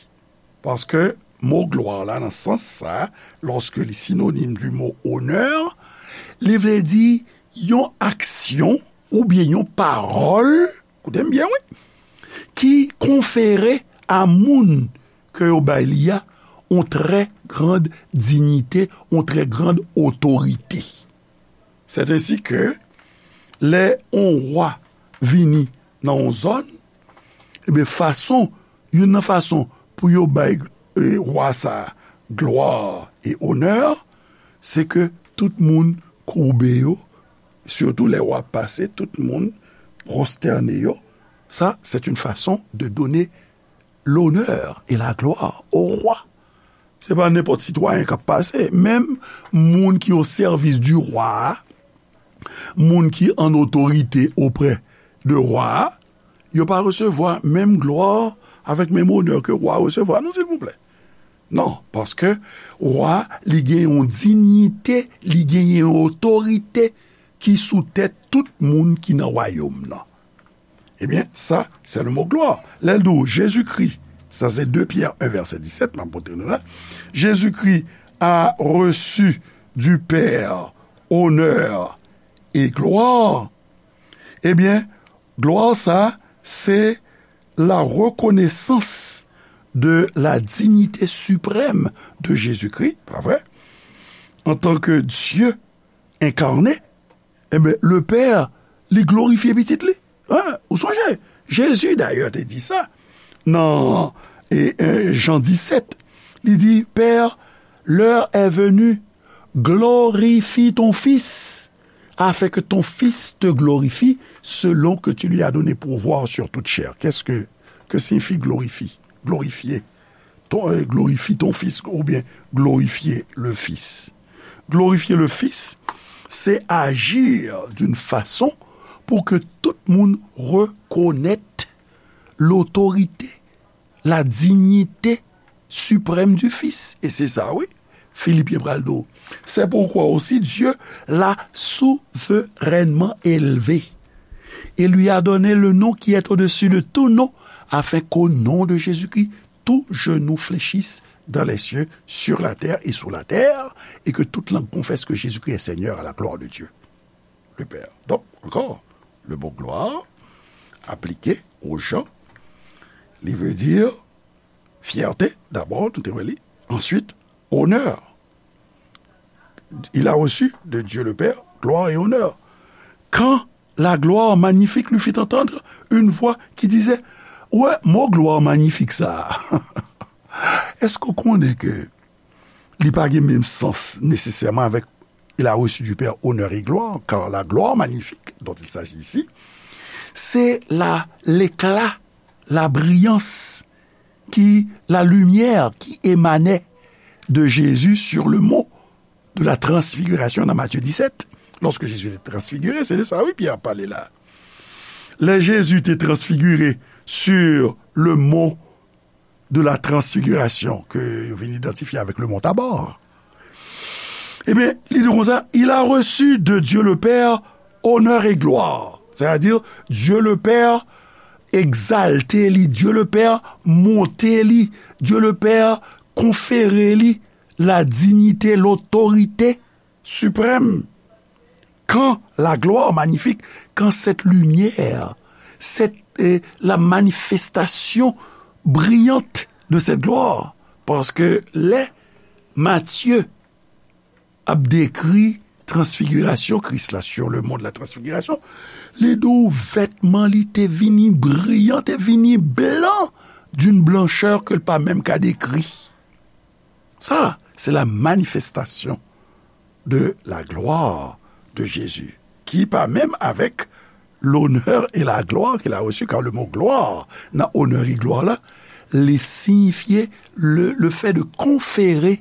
Paske mo glwa la, nan sans sa, lòske li sinonim di mo onè, li vle di yon aksyon oubyen yon pawòl, koute m byen, wi, ki konfere a moun ke yo bay li a yon trè grand diyite, yon trè grand otorite. Sètensi ke lè yon wa vini nan yon zòn, ebyen, fason, youn nan fason pou yo bay, e, wa sa a glwa e onè, se ke tout moun koube yo, sitou lè wa pase, tout moun pwostène yo. Ça, c'est une façon de donner l'honneur et la gloire au roi. Se pa nenpòt sitwayen k ap pase. Menm moun ki o sèvis di wa a, moun ki an otorite oprè de wa a, yo pa resevwa menm glwa avèk menm onè ke wa a resevwa, non, silvouplè. Non, paske wa, li gen yon diyite, li gen yon otorite ki sou tèt tout moun ki nan wayòm nan. Ebyen, sa, se le mo glwa. Lè l di w Jezikri, sa se de Pyè en vèsè disèt, m ap montre nou la. Jésus-Christ a reçu du Père honneur et gloire. Ebyen, glwa sa, se la reconnaissance de la dignité suprême de Jésus-Christ, pa vre? En tant que Dieu incarné, ebyen, le Père, li glorifye pitit li. Hein? Ou sonje? Jezi, dayè, te di sa nan, e, e, Jan disèt. Li di, Père, l'heure est venue, glorifie ton Fils, afin que ton Fils te glorifie, selon que tu lui as donné pouvoir sur toute chair. Qu'est-ce que, que signifie glorifie? Glorifier. Ton, euh, glorifie ton Fils, oubyen glorifier le Fils. Glorifier le Fils, c'est agir d'une façon pour que tout moun reconnaît l'autorité, la dignité suprême du Fils. E se sa, wi, Filipyen pral di w. C'est pourquoi aussi Dieu l'a souverainement élevé et lui a donné le nom qui est au-dessus de tout nom, afin qu'au nom de Jésus-Christ, tout genou fléchisse dans les cieux, sur la terre et sous la terre, et que toute langue confesse que Jésus-Christ est Seigneur à la gloire de Dieu, le Père. Donc, encore, le mot gloire appliqué aux gens, Li vle di fyète, dabò, nou te wè li. Answit, onè. Il a reçu de Dieu le Père gloire et honneur. Quand la gloire magnifique lui fit entendre une voix qui disait, wè, mo gloire magnifique sa a. Èske w konnen ke li pa gen menm sans nesesèman avèk il a reçu du Père honneur et gloire, car la gloire magnifique dont il s'agit ici, c'est la, l'éclat, la brillance qui, la lumière qui émanait de Jésus sur le mont de la transfiguration dans Matthieu dix-sept. Lorsque Jésus était transfiguré, c'est de ça, oui, Pierre a parlé là. Lè Jezi te transfigire sur le mont de la transfiguration, ke yo vin idantifye avèk le mont Tabor. Ebyen, li di konsa, il a reçu de Dieu le Père honneur et gloire. C'est-à-dire, Dieu le Père egzalte li, Dieu le Père monte li, Dieu le Père konfere li la dignité, l'autorité suprême. Quand la gloire magnifique, quand cette lumière, cette, euh, la manifestation brillante de cette gloire. Paske lè Matye ap dekri transfigirasyon Kris la, sur le mont de la transfiguration, li di w vètman li te vini briyan, te vini blan, d'une blancheur ke l pa menm ka dekri. Ça, c'est la manifestation de la gloire de Jésus, qui part même avec l'honneur et la gloire qu'il a reçu, car le mot gloire, nan onè e glwa la, li siyifye le, le fait de conférer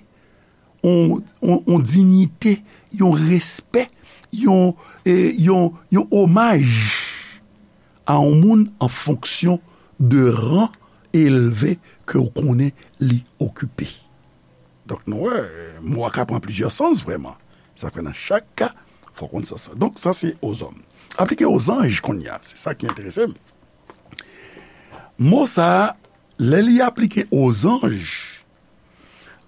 yon, yon, yon dignité, yon respè, yon, eh, yon, yon omaj a yon moun an fonksyon de ran elve ke w konnen li okipe. Donk, nou wè, mo a ka pran plizyè sans vrèman. Sa fè nan chak ka, fò w konn sans sa. Donk, sa se ozòm. Aplike ozanj kounye a, se sa ki enterese m. Mo sa a, lè li aplike ozanj,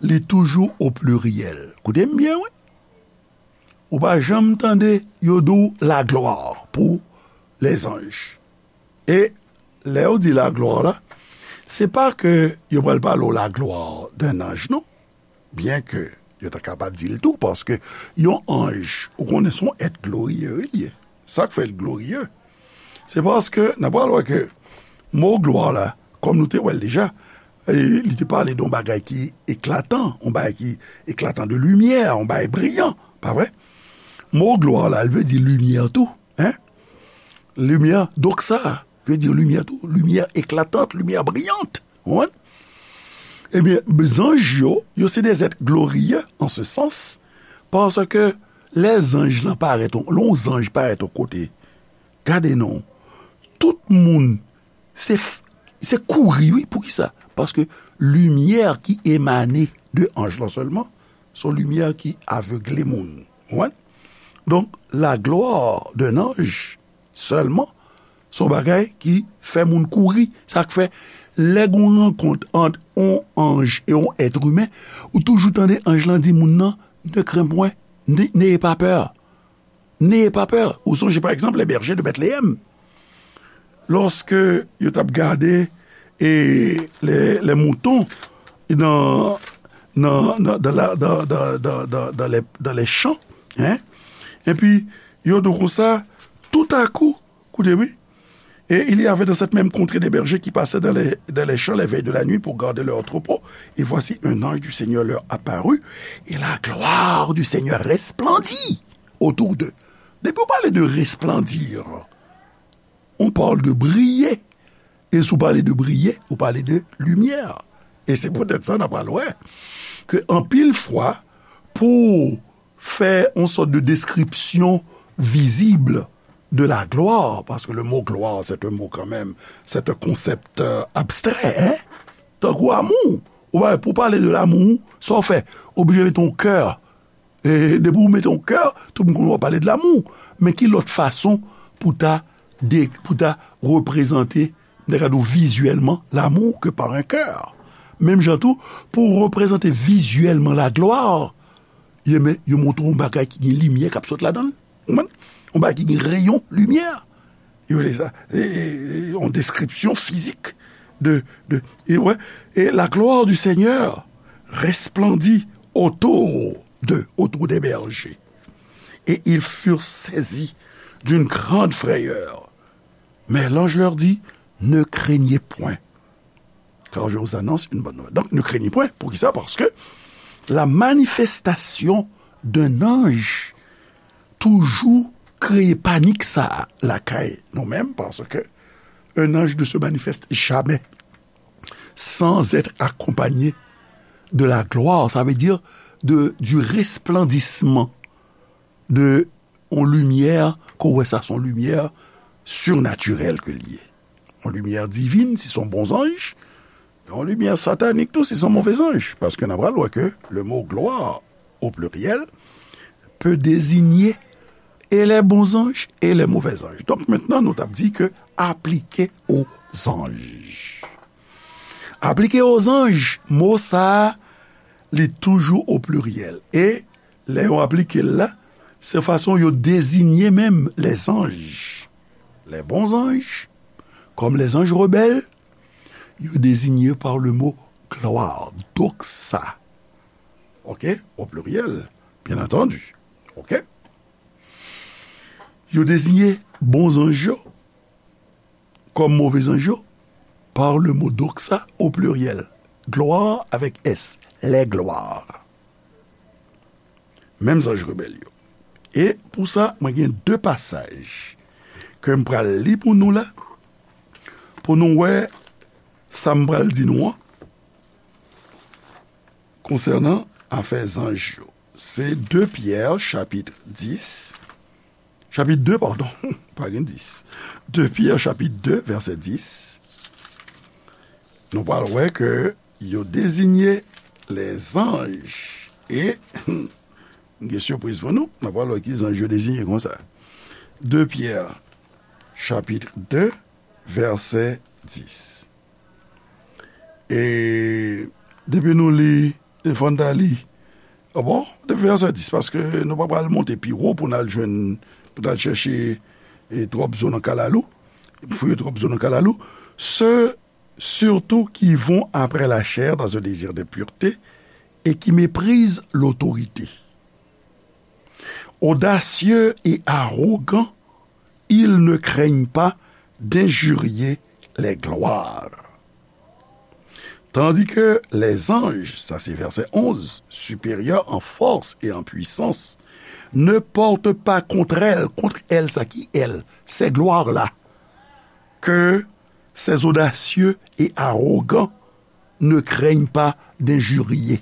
li toujou o pliryèl. Koute m byen, wi. Ou pa janm tande yo di w laglwa pou lèzanj. E lè yo di laglwa la, se pa ke yo pral pale w laglwa d'un ange, non. Byen ke yo ta kapab di l tou, paske yon anj, ou konnen se yon èt gloriye, wi, li ye. Sa k fè l gloriye, se paske n ap pral wè ke mo glwa la, kòm nou te wè l deja, e, li te pale de yon bagay ki eklatan, yon bagay ki eklatan de limyè, yon bagay briyan, pa vre? Mo glwa la, li vle di limyè tou, en? Limyè, doxa, vle di limyè tou, limyè eklatant, limyè briyant, ou konprann? Ebyen, zanj yo, yo se des êtres glorieux en ce sens, paske lè zanj lan parèt, lè yon zanj parèt yon kote, gade non, tout moun, se, se kouri, wi, poukisa? Paske limyè ki emane de anj lan sèlman, se yon limyè ki avegle moun. Ou konprann? Donk, la gloire d'un ange sèlman, se yon bagay ki fè moun kouri. Sa k fè, lè gen yon rankont ant yon anj e yon èt imen, ou toujou tande anj lan di moun nan, ne crains point, ne, n'ayez pas peur. N'ayez pas peur. Ou sonje, pa egzanp, les bergers de Bethléem. Lòske yo t ap gade, e, les, les moutons dans, dans, dans, dans la, dans, dans, dans, dans, dans les, dans les champs, hein? Epi, yo di konsa, tout à coup, koute, wi. Et il y avait dans cette même contrée des bergers qui passaient dans les, dans les champs les veilles de la nuit pour garder leurs troupeaux. Et voici, un ange du Seigneur leur apparut, et la gloire du Seigneur resplendit autour d'eux. Depi w pale de resplendir, on parle de briller. E si w pale de briller, ou pale de limyè. E se poutèt sa n ap pral wè ke anpil fwa, pou fè yon sòt de description visible de la gloire, parce que le mot gloire, c'est un mot quand même, c'est un concept, euh, abstrait, hein? Tankou amou. Ou pa, pou pale de lamou, sa w fè? Oblije mete yon kè. E depi w mete yon kè, tout moun konn w ap pale de lamou. Men ki lòt fason pou ta de, pou ta reprezante, m ta ka di w vizyèlman, lamou ke pa yon kè? Menm jan tou, pou w reprezante vizyèlman laglwa, yo, men, yo montre w yon bagay ki gen limyè k ap sot ladan l. Ou konprann? Yon bagay ki gen reyon limyè. Yo rele sa, e, e, e, yon deskripsyon fizik de, de, et ouais, et la gloire du Seigneur resplendit autour d'eux, autour des bergers. Et ils furent saisis d'une grande frayeur. Mais l'ange leur dit, ne craignez point, car je vous annonce une bonne nouvelle. Donc, ne craignez point. Poukisa? Paske la manifestasyon d'un ange toujou kreye panik sa a lakay nou menm, paske un ange ne se manifeste jamais sans être accompagné de la gloire, ça veut dire de, du resplendissement de yon limyè, ke w wè sa se yon limyè sirnatirèl ke l ye. Yon limyè divin, si se yon bon zanj, yon limyè satanik tou, si se yon move zanj. Paske n a pral wè ke le mot gloire, au pluriel, peut désigner et les bons anges et les mauvais anges. Donk, mentnan, nou t ap di ke aplike o zanj. Aplike o zanj, mo sa a, li toujou o pliryèl. E lè yo aplike l la, se fason yo deziye menm les anges. Les bons anges, comme les anges rebelles, yo désignés par le mot gloire, doxa. OK? Au pluriel, bien entendu. OK? Yo deziye bon zanj yo kòm move zanj yo par le mot doxa au pluriel. Gloire avec S, les gloires. Menm zanj rebèl yo. E pou sa, mwen gen de pasaj ke m pral li pou nou la, pou nou wè sa m pral di nou an konsènan afè zanj yo. Se de Pyè, chapit dis, chapit de, padon, pa gen dis. De Pyè, chapit de, vèsè dis. Nou pral wè ke yo deziye lèzanj. E, gen sipriz pou nou, nou pral wè ki zanj yo deziye konsa. De Pyè, chapit de, vèsè dis. E depi nou li, e fò n ta li. A bon? Depi vèsè dis, paske nou pa pral monte pi wo pou n al jwenn, pou n al chèche, e, twòp zo nan kalalou, fouye twòp zo nan kalalou. Ceux surtout qui vont après la chair dans un désir de pureté et qui méprisent l'autorité. Audacieux et arrogants, ils ne craignent pas d'injurier les gloires. Tandis que les anges, ça c'est verset onze, supérieurs en force et en puissance, ne portent pas contre elles, contre elles, sa ki elles, ces gloires-là, que ces audacieux et arrogants ne craignent pas d'injurier.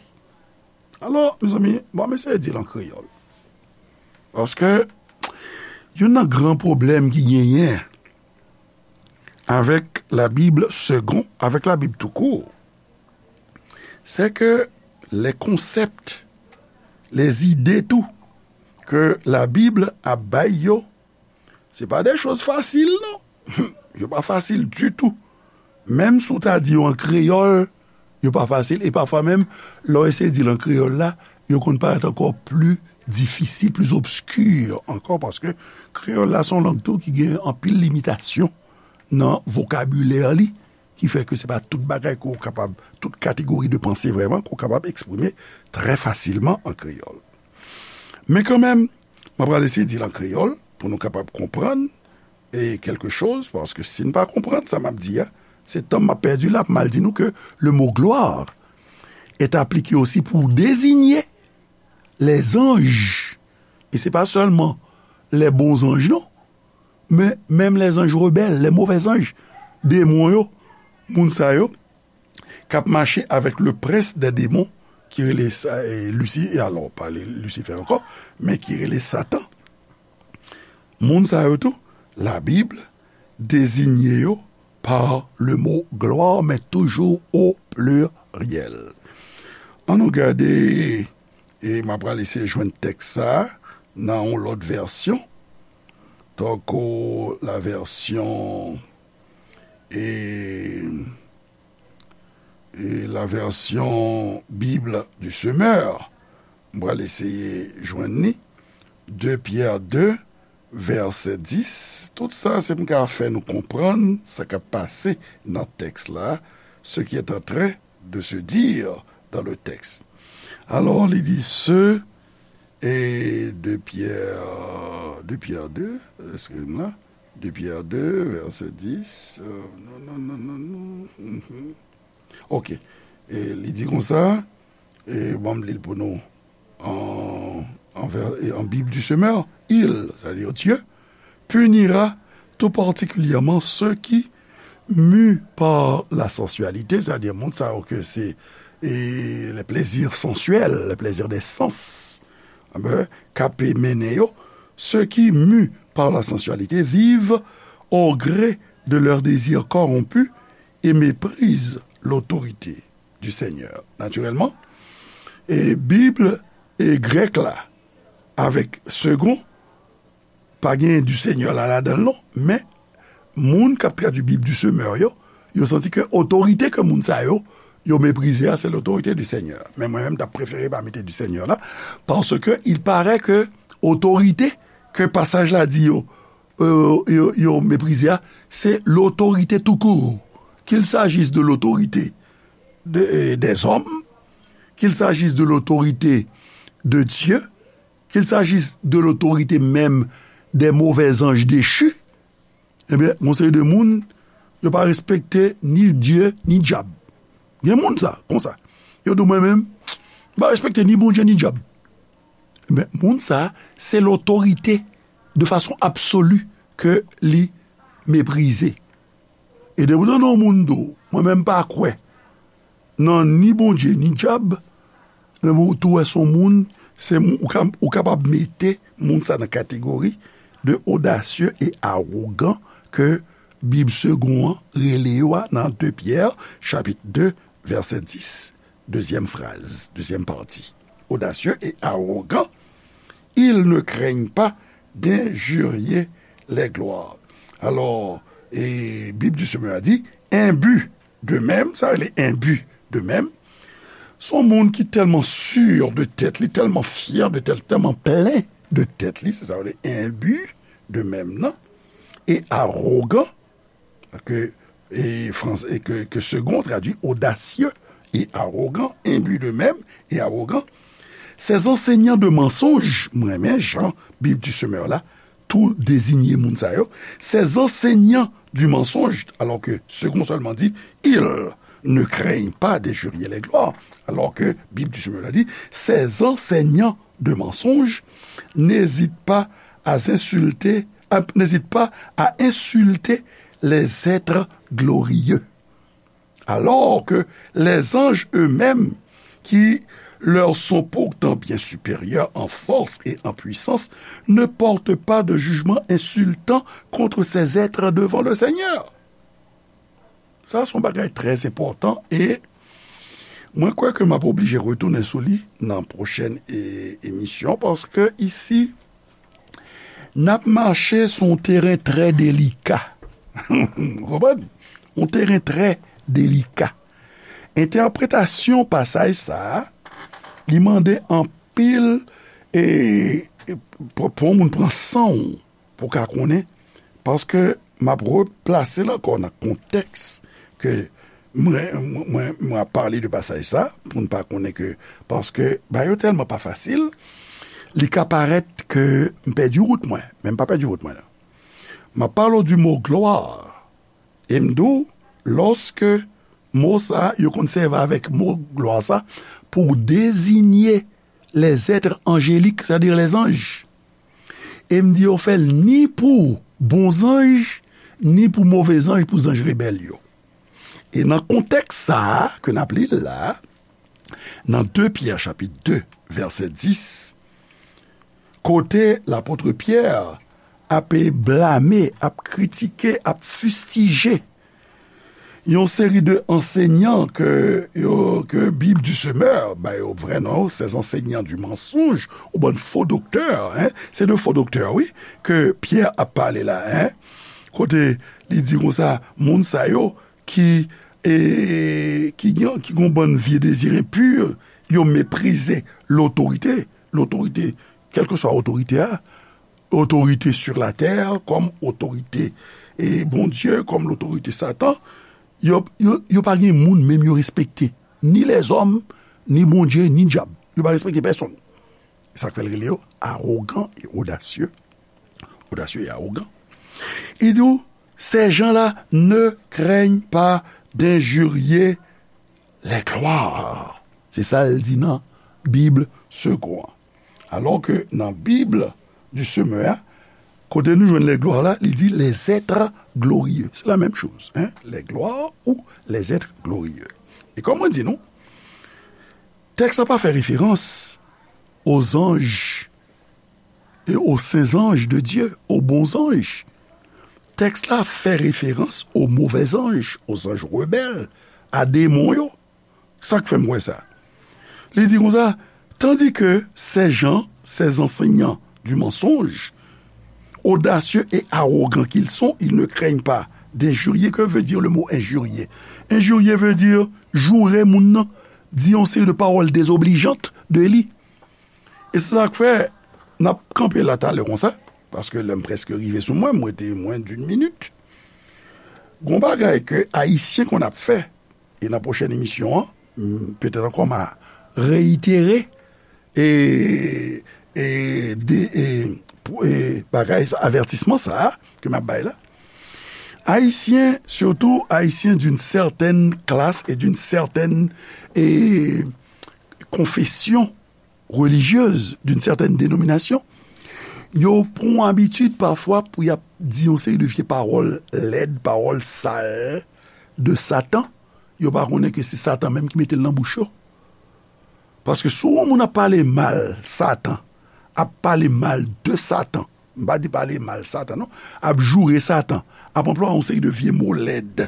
Alò, mezanmi, bon, m eseye di l an kreyòl. Paske youn nan gran pwoblèm ki genyen avèk la Bible seconde, avec la Bible tout court, c'est que les concepts, les idées tou, ke la Bib ap bay yo, se pa de choz fasil, non. Yo pa fasil ditou. Menm si w ta di yo an kreyòl, yo pa fasil. E pafwa menm, lè w eseye di l an kreyòl la, yo konn parèt ankò pli difisil, pli obski ankò, paske kreyòl la se yon lang tou ki gen anpil limitasyon nan vokabilè li, ki fè ke se pa tout bagay ke w kapab, tout kategori de panse vrèman, ke w kapab eksprime trè fasilman an kreyòl. Men kanmenm, mwen pral eseye di l an kreyòl pou nou kapab konprann e kèlke choz, paske si n pa konprann sa m ap di a, se tan m ap pèdi la pou m al di nou ke le mot gloire est appliqué aussi pour désigner les anges. E se pa sèlman les bons anges, non, men menm les anges rebelles, les mauvais anges, demon yo, moun sa yo, k ap mache avèk le prince des démons, ki rele sa, e, Lisi-, e alò, pa le-, Lisifè ankò, men ki rele Satan. Moun sa yo tou, Labib deziye yo par le mot gloire, men toujou o pliryèl. Ann nou gade, e m ap pral eseye jwenn tèks sa a nan yon lòt vèsyon, tankou la vèsyon, e, e la vèsyon Bible du Semeur. M pral eseye jwenn li. De Pyè de, vèsè dis, tout sa se pou m ka fè nou konprann sa k ap pase nan tèks la, ce qui est en train de se dire dans le texte. Alò, li di, ce, e de Pierre, de Pierre deux, excusez-moi, de Pierre deux, vèsè dis, euh, non, non, non, non, non, mhm. Ok. E li di konsa, e ban m li l pou nou, en, en, vè- e en Bible du Semeur, il, c'est-à-dire Dieu, punira tout particulièrement ceux qui, mus par la sensualité, c'est-à-dire moun sa yo ke se e les plaisirs sensuels, les plaisirs des sens, enben, k ap mennen yo, ceux qui, mus par la sensualité, vivent au gré de leurs désirs corrompus et méprisent l'autorité du Seigneur. Natirèlman, e Bib e grèk la avèk second, pa gen du Seigneur la ladan l non, men moun k ap tradui Bib du Semeur yo, yo santi ke otorite ke moun sa yo, yo meprize a, se l'autorité du Seigneur. Men mwen menm, m t ap prefere pa mete du Seigneur la, paske il paraît ke otorite ke pasaj la di yo, euh, yo, yo meprize a, se l'autorité tout court. Qu'il s'agisse de l'autorité de, euh, des hommes, qu'il s'agisse de l'autorité de Dieu, qu'il s'agisse de l'autorité même des mauvais anges déchus, ebyen, gon seri de moun, yo pa respekte ni Dye, ni dyab. Gen moun sa, konsa. Yo di, mwen menm, m pa respekte ni Bondye, ni dyab. Ebyen, moun sa, se l'autorité de façon absolue ke li meprize. E depi w tande yon moun di w, mwen menm pa kwè nan ni Bondye, ni dyab, men bon, ou tou wè se yon moun, se, ou ka, ou kapab mete moun sa nan kategori de audacieux et arrogant ke Bib second an rele yo a nan de Pyè, chapit de, vèsè dis, dezyèm fraz, dezyèm pati. Audacieux et arrogant, ils ne craignent pas d'injurier les gloires. Alò, e Bib du Semeur a di, imbu d'eux-mêmes, sa rele imbu d'eux-mêmes, se yon moun ki tèlman sur de tèt li, tèlman fyè de tèt, tèlman plen de tèt li, se sa rele imbu d'eux-mêmes nan, e arogan, ke, e, frans-, e ke, ke Segond tradui audacieux et arrogant, imbu d'eux-mêmes et arrogant. Ces enseignants de mensonges, mwen renmen jan Bib du Semeur la tou deziye moun sa yo, ces enseignants du mensonge, alors que Segond seulement dit, ils ne craignent pas d'injurier les gloires, alors que Bib du Semeur la di, ces enseignants de mensonges n'hésitent pas à insulter, à, n'hésitent pas à insulter les êtres glorieux, alors que les anges eux-mêmes, qui leur sont pourtant bien supérieurs en force et en puissance, ne portent pas de jugement insultant contre ces êtres devant le Seigneur. Sa se yon bagay trè enpòtan e mwen kwè ke m ap oblije retounen sou li nan pwochèn e, emisyon, paske isi, n ap mache sou yon teren trè delika. Ou konprann? Yon teren trè delika. Entèpretasyon pasaj sa a, li mande anpil e, e pou, pou yon moun pran san w pou w ka konnen, paske m ap replase l ankò nan kontèks ke mwen, mwen, mwen ap pale de pasaj sa, pou n pa konnen ke, paske bagay yo tèlman pa fasil, li ka parèt ke m pèdi wout mwen, men m pa pèdi wout mwen non. M ap pale w du mo glwa, e m di w, lòske mo sa, yo konn sèvi avèk mo glwa sa pou deziye les êtres angéliques, c'est-à-dire les anges. E m di yo fè l ni pou bon zanj, ni pou move zanj, pou zanj rebèl yo. E nan kontèks sa a ke n ap li l la, nan de Pyè chapit de, vèsè dis, kote lapot Pyè ap blame, ap kritike, ap fistije yon seri de ansèynan ke, yo, ke Bib du Semeur ba yo vrè non, ces enseignants du mensonge, ou bann fo doktè, en, se de fo doktè, wi, ke Pyè ap pale la, en, kote li di konsa, moun sa yo ki, e, ki gen, ki gen yon bann vye dezi enpi, yo meprize lotorite, lotorite, kèlkeswa otorite a, otorite sur la tè, kòm otorite e Bondye, kòm lotorite Satan, yo, yo, yo pa gen moun menm yo respekte. Ni lèzòm, ni Bondye, ni dyab. Yo pa respekte pèsonn. Sa k fè l rele yo awogan e odasye. Odasye e awogan. Li di w, ces gens-là ne craignent pas d'injurier les gloires. Se sa l di nan Bib Segond an. Alò ke nan Bib du Semeur a, kote nou jwenn les gloires la, li di les êtres glorieux. Se la menm choz, hein? Les gloires ou les êtres glorieux. E kòm mwen di nou, tèks la pa fè referans aux anges et aux saints anges de Dieu, aux bons anges. Tèks la fè referans aux mauvais anges, aux anges rebelles, a demon yo. Sa k fè m wè sa? Li di konsa, tandis que ces gens, ces enseignants du mensonge, audacieux et arrogants qu'ils sont, ils ne craignent pas d'injurier. Que veut dire le mot injurier? Injurier veut dire joure moun nan, di yon seri de pawòl dezoblijan de li. E se sa k fè n ap kanpe la talè konsa, paske lè m prèske rive sou mwen, m rete mwens d'une minute. Gon bagay ke Ayisyen konn ap fè, e nan pwochèn emisyon an, m, petèt ankò m a reyitere e, e, de, e, pou, e bagay sa, avètisman sa a ke m ap bay la. Ayisyen, surtout Ayisyen d'une certaine classe et d'une certaine, e, confession religieuse, d'une certaine dénomination, yo pran abitid pafwa pou y ap di yon seri de vye pawòl lèd, pawòl sal de Satan. Yo pa konnen ke se Satan menm ki mete l nan bouch yo. Paske si yon moun ap pale mal Satan, ap pale mal de Satan, m pa di pale mal Satan non, ap joure Satan, ap anplwaye yon seri de vye mo lèd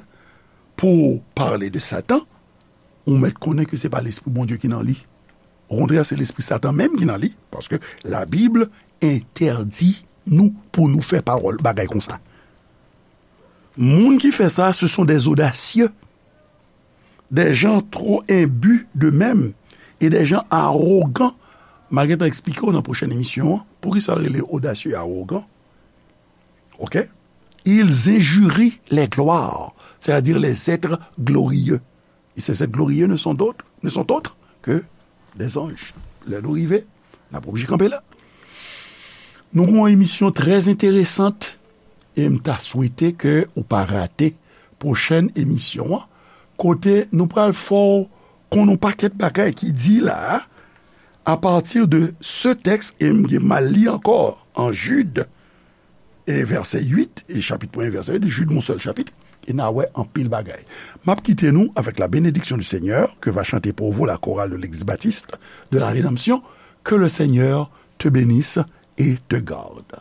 pou pale de Satan, ou mèt konnen ke se pa lespri Bondye ki nan li. Okontrè, se lespri Satan menm ki nan li, paske Labib entèdi nou pou nou fè pawòl bagay konsa. Moun ki fè sa, ce sont des audacieux, des gens trop imbus d'eux-mêmes et des gens arrogants. M a gentan eksplike w nan pwochèn emisyon an poukisa l rele odasye e awogan. Ok? Ils injurient les gloires, c'est-à-dire les êtres glorieux. Et ces êtres glorieux ne sont d'autres, ne sont autres que des anges. Lè nou rive, n ap oblije kanpe la. Nou gen yon emisyon trè enteresan e m ta swete ke ou pa rate pwochèn emisyon an, kote nou pral fè w konn yon pakèt bagay ki di la a, à partir de ce texte, e m gen m al li ankò an Jid, e vèsè uit, e chapit premye, vèsè uit, Jid, yon sèl chapit, e n a wè anpil bagay. M ap kite nou avec la bénédiction du Seigneur que va chanter pour vous la chorale de l'église baptiste de la Rédemption. Que le Seigneur te bénisse et te garde.